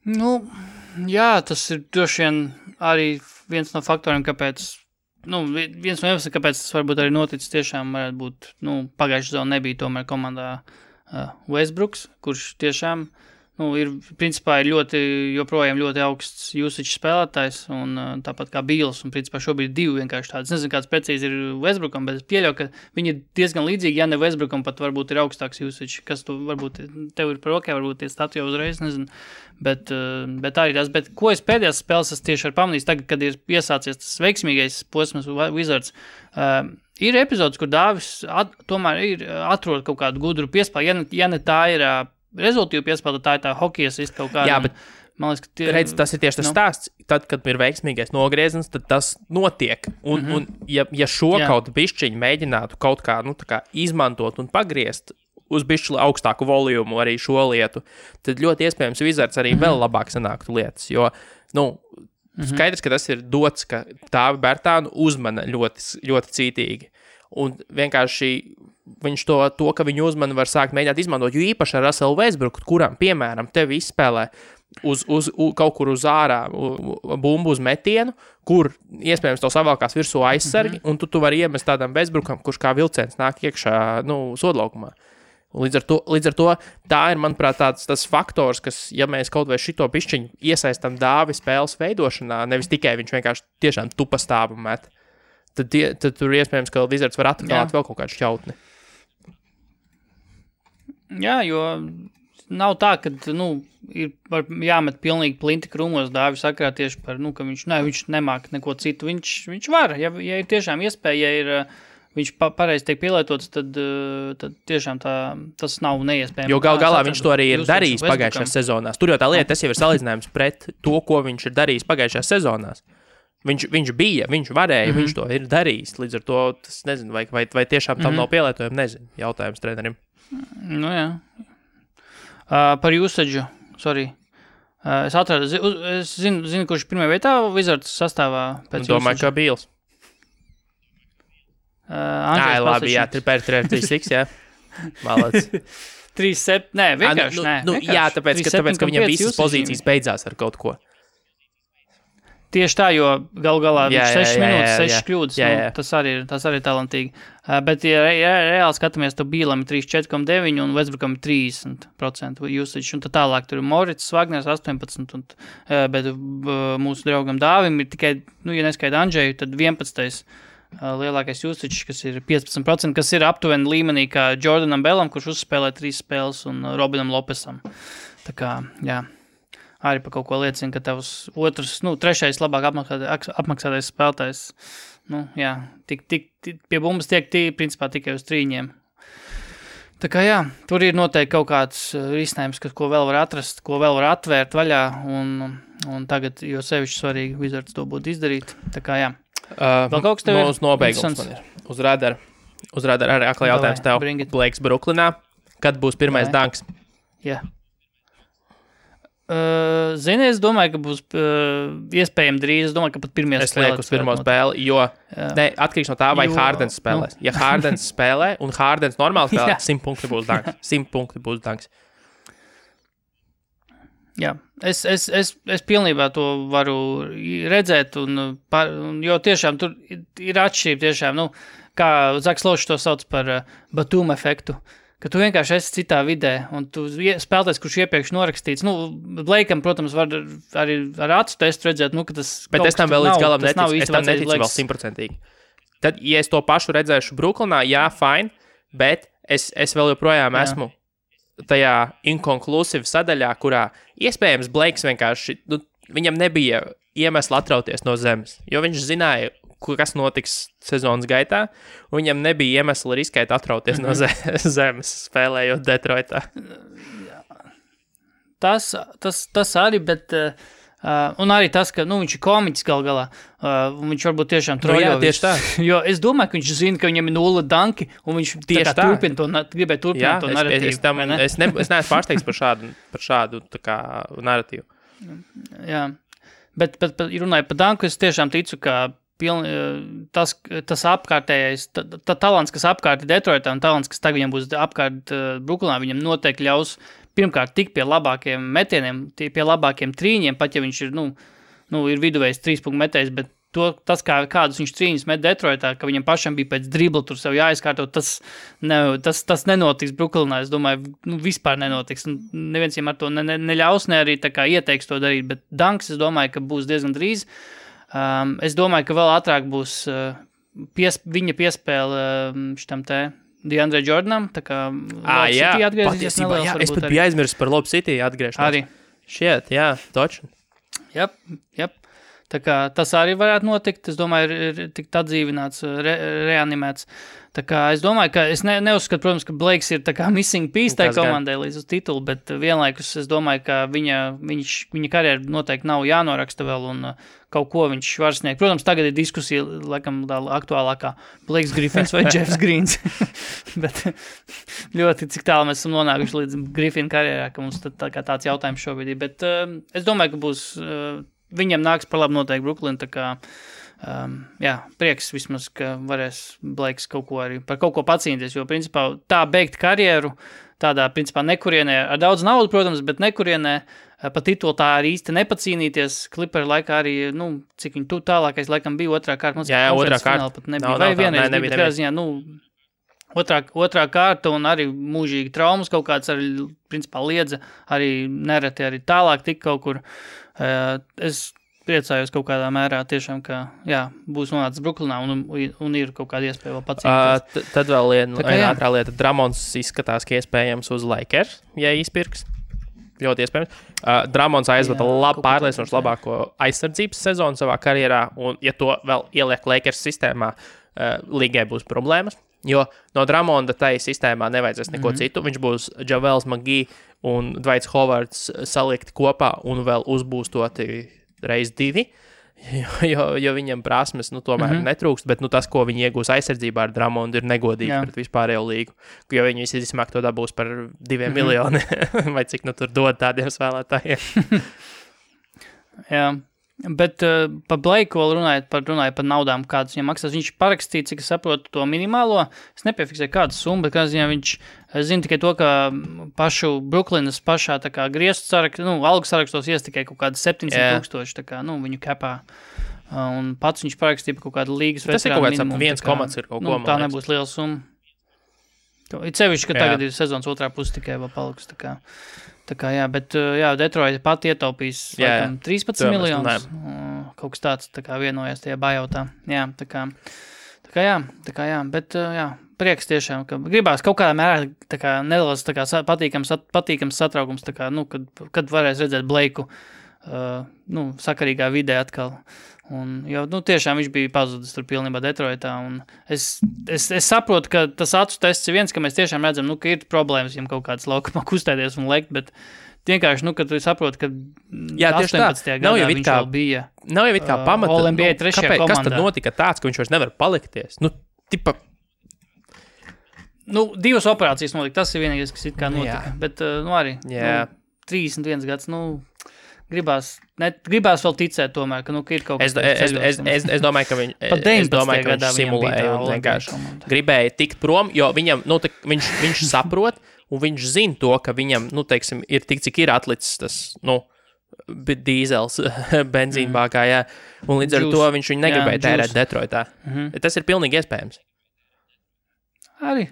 Speaker 3: Tas ir droši vien arī viens no faktoriem, kāpēc, viens no iemesliem, kāpēc tas varbūt arī noticis tiešām varētu būt, pagājušā sezona nebija tomēr komandā Westbrooks, kurš tiešām, ir joprojām ļoti augsts usage spēlētājs, un tāpat kā Beals, un principā šobrīd divi vienkārši tādas. Nezinu, kāds precīzi ir Westbrookam, bet es pieļauju, ka viņi ir diezgan līdzīgi, ja ne Westbrookam pat varbūt ir augstāks usage, kas tu varbūt tev ir par ok, varbūt tie stati jau uzreiz, nezinu, bet arī tas, bet ko es pēdējās spēles tieši ar pamanījis tagad, kad ir iesācies tas veiksmīgais posms Wizards, ir epizodes, kur Dāvis tomēr atrod kaut kādu gudru piespēli, ja ne tā ir rezultīvu piespēlē, tā ir tā hokejas kaut kāda.
Speaker 2: Jā, bet man liekas, redz, tas ir tieši tas stāsts. Tad, kad ir veiksmīgais nogrieziens, tad tas notiek. Un ja šo kaut bišķiņu mēģinātu kaut kā, kā izmantot un pagriezt uz bišķi augstāku volumu arī šo lietu, tad ļoti iespējams Wizards arī vēl labāk sanāktu lietas. Jo, skaidrs, ka tas ir dots, ka Dāvi Bertānu uzmana ļoti, ļoti cītīgi. Un vienkārši viņš to, ka viņu uzmani var sākt mēģināt izmantot, jo īpaši ar Russellu Westbrooku, kuram, piemēram, tevi izspēlē kaut kur uz ārā bumbu uz metienu, kur iespējams to savalkās virsū aizsargi, un tu vari iemest tādam Westbrookam, kurš kā vilciens nāk iekšā, sodlaukumā. Līdz ar to tā ir, manuprāt, tas faktors, kas, ja mēs kaut vai šito pišķiņu iesaistam Dāvi spēles veidošanā, nevis tikai viņš vienkārši tiešām tupa stāvu met, tad tur iespējams, ka Wizards var atklāt vēl kaut kādu šķautni. Jā, jo nav tā, ka, ir jāmet pilnīgi plinti krūmos Dāvi sakrā tieši par, ka viņš nemāk neko citu. Viņš var, ja ir tiešām iespēja, ja viņš pareizi tiek pielietots, tad tiešām tas nav neiespējami. Jo galā viņš to arī ir darījis pagājušajās sezonās. Tur jau tā lieta, tas jau ir salīdzinājums pret to, ko viņš ir darījis pagājušajās sezonās. Viņš bija, viņš varēja, viņš to ir darījis. Līdz ar to, tas nezinu, vai tiešām tam nav pielietojumi, nezinu, jautājums trenerim. Jā. Par usage, sorry. Es atradu, es zinu, kurš pirmajā vietā Wizards sastāvā pēc domāju, ka Beals. Labi, jā, 3-6, jā. Malac.
Speaker 3: 3-7, nē, vienkārši nē.
Speaker 2: Jā, tāpēc, ka viņam visas pozīcijas beidzās ar kaut ko.
Speaker 3: Tieši tā, jo galā viņš 6 minūtes, 6 kļūdas, tas arī ir talantīgi. Bet, ja reāli skatāmies, tad Bīlam ir 34,9 un Westbrookam ir 30% usage, un tad tālāk tur ir Morits, Wagners 18, bet mūsu draugam Dāvim ir tikai, ja neskaita Andžeju, tad 11. Lielākais usage, kas ir 15%, kas ir aptuveni līmenī kā Jordanam Bellam, kurš uzspēlē 3 spēles, un Robinam Lopesam. Tā kā, jā. Arī par kaut ko liecina, ka tavs trešais labāk apmaksātais spēlētājs, pie bumbas tiek principā tikai uz 3. Tā kā jā, tur ir noteikti kaut kāds risinājums, ko vēl var atrast, ko vēl var atvērt vaļā, un tagad, jo sevišķi svarīgi Wizards to būtu izdarīt. Tā kā jā. Vēl kaut kas tev ir?
Speaker 2: Nobeigums man ir. Uz radara arī aklā jautājums tev. Blakes Brooklynā. Kad būs pirmais danks?
Speaker 3: Jā. Zini, es domāju, ka būs iespējami drīz. Es domāju, ka pat pirmajā
Speaker 2: spēlē. Es lieku uz pirmo spēli, jo atkarīgs no tā, vai Hardens spēlēs. Ja Hardens spēlē un Hardens normāli spēlē, 100 punkti būs danks. 100 punkti būs danks.
Speaker 3: Jā, es pilnībā to varu redzēt, jo tiešām tur ir atšķirība tiešām, kā Zaks Lošs to sauc par Batum efektu, ka tu vienkārši esi citā vidē, un tu spēlētājs, kurš iepriekš norakstīts, Blakeam, protams, var arī ar acu testu redzēt, ka tas
Speaker 2: bet es tam vēl līdz galam neticu, es tam neticu vēl 100%. Tad, ja es to pašu redzēšu Brooklynā, jā, fine, bet es vēl joprojām esmu tajā inconclusive sadaļā, kurā iespējams Blakes vienkārši, viņam nebija iemesla atrauties no zemes, jo viņš zināja, kas notiks sezonas gaitā, un viņam nebija iemesla riskēt atrauties no zemes, spēlējot Detroitā.
Speaker 3: Tas arī, bet... un arī tas, ka viņš ir komiķis galā, viņš varbūt tiešām troļo.
Speaker 2: Jā, tieši tā.
Speaker 3: Jo es domāju, ka viņš zina, ka viņam ir 0 danki, un viņš gribēja turpināt to narratīvu.
Speaker 2: Es neesmu pārsteigts par šādu tā kā narratīvu.
Speaker 3: Jā, bet runāju par danku, es tiešām ticu, ka tas apkārtējais, talants, kas apkārt ir Detroitā, un talants, kas tagad viņam būs apkārt Brooklynā, viņam noteikti ļaus pirmkārt tik pie labākiem metieniem, pie labākiem trīņiem, pat ja viņš ir, ir viduvējs 3-punktu metējs, bet tas, kādus viņš trīņus met Detroitā, ka viņam pašam bija pēc dribla tur sev jāizkārtot, tas nenotiks Brooklynā, es domāju, vispār nenotiks. Neviens viņam ar to neļaus, ne arī tā kā ieteiks to darīt, bet danks, es domāju, ka būs diezgan drīz. Es domāju, ka vēl ātrāk būs viņa piespēle šitam te DeAndre Jordanam, tā kā Lob City atgriezīsies neliels.
Speaker 2: Jā, es pat biju aizmirsis par Lob City atgriešanos.
Speaker 3: Arī.
Speaker 2: Šiet, jā, točni.
Speaker 3: Jep. Tā kā tas arī varētu notikt, es domāju, ir tikt atdzīvināts, reanimēts. Tā kā es domāju, ka es neuzskatu, protams, ka Blakes ir tā kā missing piece tai komandai līdz uz titulu, bet vienlaikus es domāju, ka viņa karjera noteikti nav jānoraksta vēl un kaut ko viņš var sniegt. Protams, tagad ir diskusija, laikam, aktuālākā Blakes Griffins vai Jeffs Greens, bet ļoti cik tālu mēs esam nonākuši līdz Griffina karjerā, ka mums tāds jautājums šobrīd ir, bet es domāju, ka būs... Viņam nāks par labu noteikti Brooklyn, tā kā, prieks vismaz, ka varēs Blakes par kaut ko pacīnīties, jo, principā, tā beigt karjeru, tādā, principā, nekurienē, ar daudz naudu, protams, bet nekurienē, pa titulu tā arī īsti nepacīnīties, Clipper laikā arī, cik viņi tālākais laikam bija otrā kārta,
Speaker 2: jā, otrā kārta,
Speaker 3: pat nebija, vai vienreiz nebija, ziņā, otrā kārta un arī mūžīgi traumas kaut kāds arī, principā, liedza, arī nereti arī tālāk tik kaut kur. Es priecājos kaut kādā mērā tiešām, ka, būs nonācis Brooklynā un ir kaut kāda iespēja vēl pacīnīties.
Speaker 2: Tad vēl viena ātrā lieta. Dramons izskatās, ka iespējams uz Lakers, ja izpirks. Ļoti iespējams. Dramons aizvada pārliecinoši labāko aizsardzības sezonu savā karjerā, un ja to vēl ieliek Lakers sistēmā, līgai būs problēmas. Jo no Dramonda tai sistēmā nevajadzēs neko citu. Viņš būs Javels McGee un Dwights Howards salikti kopā un vēl uzbūstoti reiz 2, jo viņam prasmes tomēr netrūkst, bet tas, ko viņi iegūs aizsardzībā ar Dramondu, ir negodīgi pret vispārējo līgu. Jo viņi visi vismāk to dabūs par 2 miljoni, vai cik tur dod tādiem spēlētājiem.
Speaker 3: Jā. Bet par Blakeu vēl runājot par naudām, kādas viņam maksās. Viņš parakstīja, cik es saprotu, to minimālo. Es nepiefiksēju kādu summu, bet kādā ziņā viņš zina tikai to, ka pašu Brooklynas pašā tā kā griestu sarakstu, algu sarakstos ies tikai kaut kādi 700,000, tā kā, viņu kapā. Un pats viņš parakstīja par kaut kādu līgas veterānu minimumu.
Speaker 2: Tas ir kaut kāds 1 ir kaut ko,
Speaker 3: tā nebūs liela summa. Ir sevišķi, ka tagad ir sezonas otrā puse tikai vēl paliks, tā kā, bet, Detroit pat ietaupīs, laikam, 13 miljonus, kaut kas tāds, tā kā vienojās tajā bajautā, tā kā, bet, prieks tiešām, ka gribās kaut kādā mērā, tā kā, nedaudz, tā kā, patīkams satraukums, tā kā, kad varēs redzēt Blakeu, sakarīgā vidē atkal. Un, jo, tiešām viņš bija pazudis tur pilnībā Detroitā, un es saprotu, ka tas acu tests ir viens, ka mēs tiešām redzam, ka ir problēmas viņam kaut kāds laukumā kustēties un lekt, bet vienkārši, kad tu saproti, ka 18. gadā viņš vēl bija
Speaker 2: nav jau it kā pamata,
Speaker 3: All-NBA 3. komandā.
Speaker 2: Kas tad notika tāds, ka viņš vairs nevar palikties?
Speaker 3: Divas operācijas notika, tas ir vienīgais, kas it kā notika, bet, arī, 31 gads, gribās vēl ticēt tomēr, ka ir kaut kas
Speaker 2: Es domāju, ka viņš simulēja un vienkārši gribēja tikt prom, jo viņam, viņš saprot, un viņš zina to, ka viņam, teiksim, ir tik, cik ir atlicis tas, dīzels benzīnbākā, jā. Un līdz ar to viņš viņu negribēja tērēt Detroitā. Tas ir pilnīgi iespējams.
Speaker 3: Arī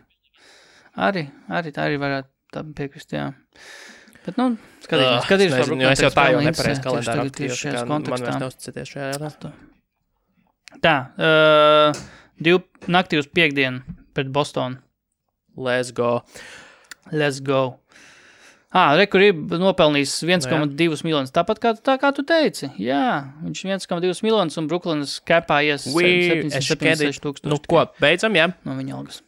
Speaker 3: tā arī varētu tā piekrist, jā. Bet, skatīsimies.
Speaker 2: Es jau tā jau nepareiz kalendāru aktīvi, man vairs neuzticaties šajā jautā.
Speaker 3: Tā, naktī uz piekdienu pret Bostonu.
Speaker 2: Let's go.
Speaker 3: Rekur ir nopelnījis 1,2 miljonus, tāpat kā tu teici. Jā, viņš 1,2 miljonus un Brooklynas capā ies 76 tūkstoši.
Speaker 2: Ko, beidzam, jā?
Speaker 3: No viņa algas.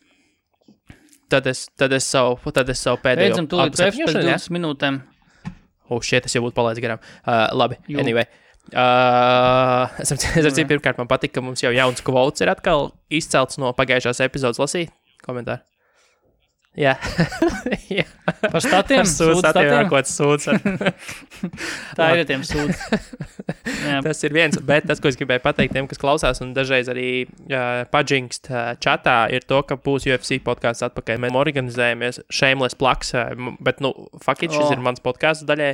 Speaker 2: Tad es savu pēdējo...
Speaker 3: Beidzam tūlīt pēc 20 minūtēm.
Speaker 2: Shit, es jau būtu palaidis garām. Labi, anyway. Es pirmkārt, man patika, ka mums jau jauns quotes ir atkal izcelts no pagājušās epizodes lasīt komentāru. Jā.
Speaker 3: Par statiem?
Speaker 2: Sūds.
Speaker 3: Tā ir tiem sūds.
Speaker 2: Tas ir viens, bet tas, ko es gribēju pateikt tiem, kas klausās un dažreiz arī paģinkst čatā, ir to, ka būs UFC podcasts atpakaļ. Mēs organizējamies shameless plugs, bet, fuck it, šis ir mans podcasts daļai.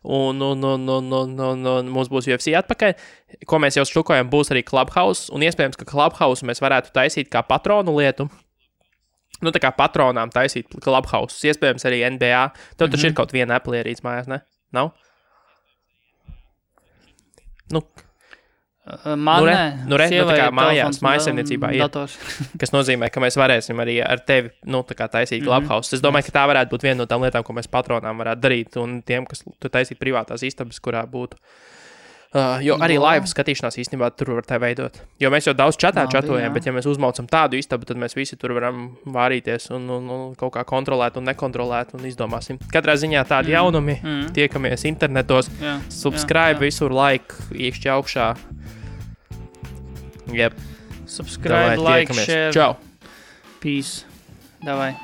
Speaker 2: Un mums būs UFC atpakaļ. Ko mēs jau štukojam, būs arī Clubhouse, un iespējams, ka Clubhouse mēs varētu taisīt kā patronu lietu. Tā kā patronām taisīt Clubhouse, iespējams arī NBA. Tev taču ir kaut viena Apple ierīce mājās, ne? Nav?
Speaker 3: Man
Speaker 2: tā kā mājasēmniecībā ir. Kas nozīmē, ka mēs varēsim arī ar tevi, tā kā taisīt Clubhouse. Es domāju, ka tā varētu būt viena no tām lietām, ko mēs patronām varētu darīt, un tiem, kas tu taisīt privātās istabas, kurā būtu. Jo arī live skatīšanās īstenībā tur var tā veidot. Jo mēs jau daudz čatojam, bet ja mēs uzmaucam tādu istabu, tad mēs visi tur varam vārīties un kaut kā kontrolēt un nekontrolēt un izdomāsim. Katrā ziņā tādi jaunumi, tiekamies internetos, subscribe visur, like, iekšķi augšā. Yep.
Speaker 3: Subscribe, like, share.
Speaker 2: Čau.
Speaker 3: Peace. Davai.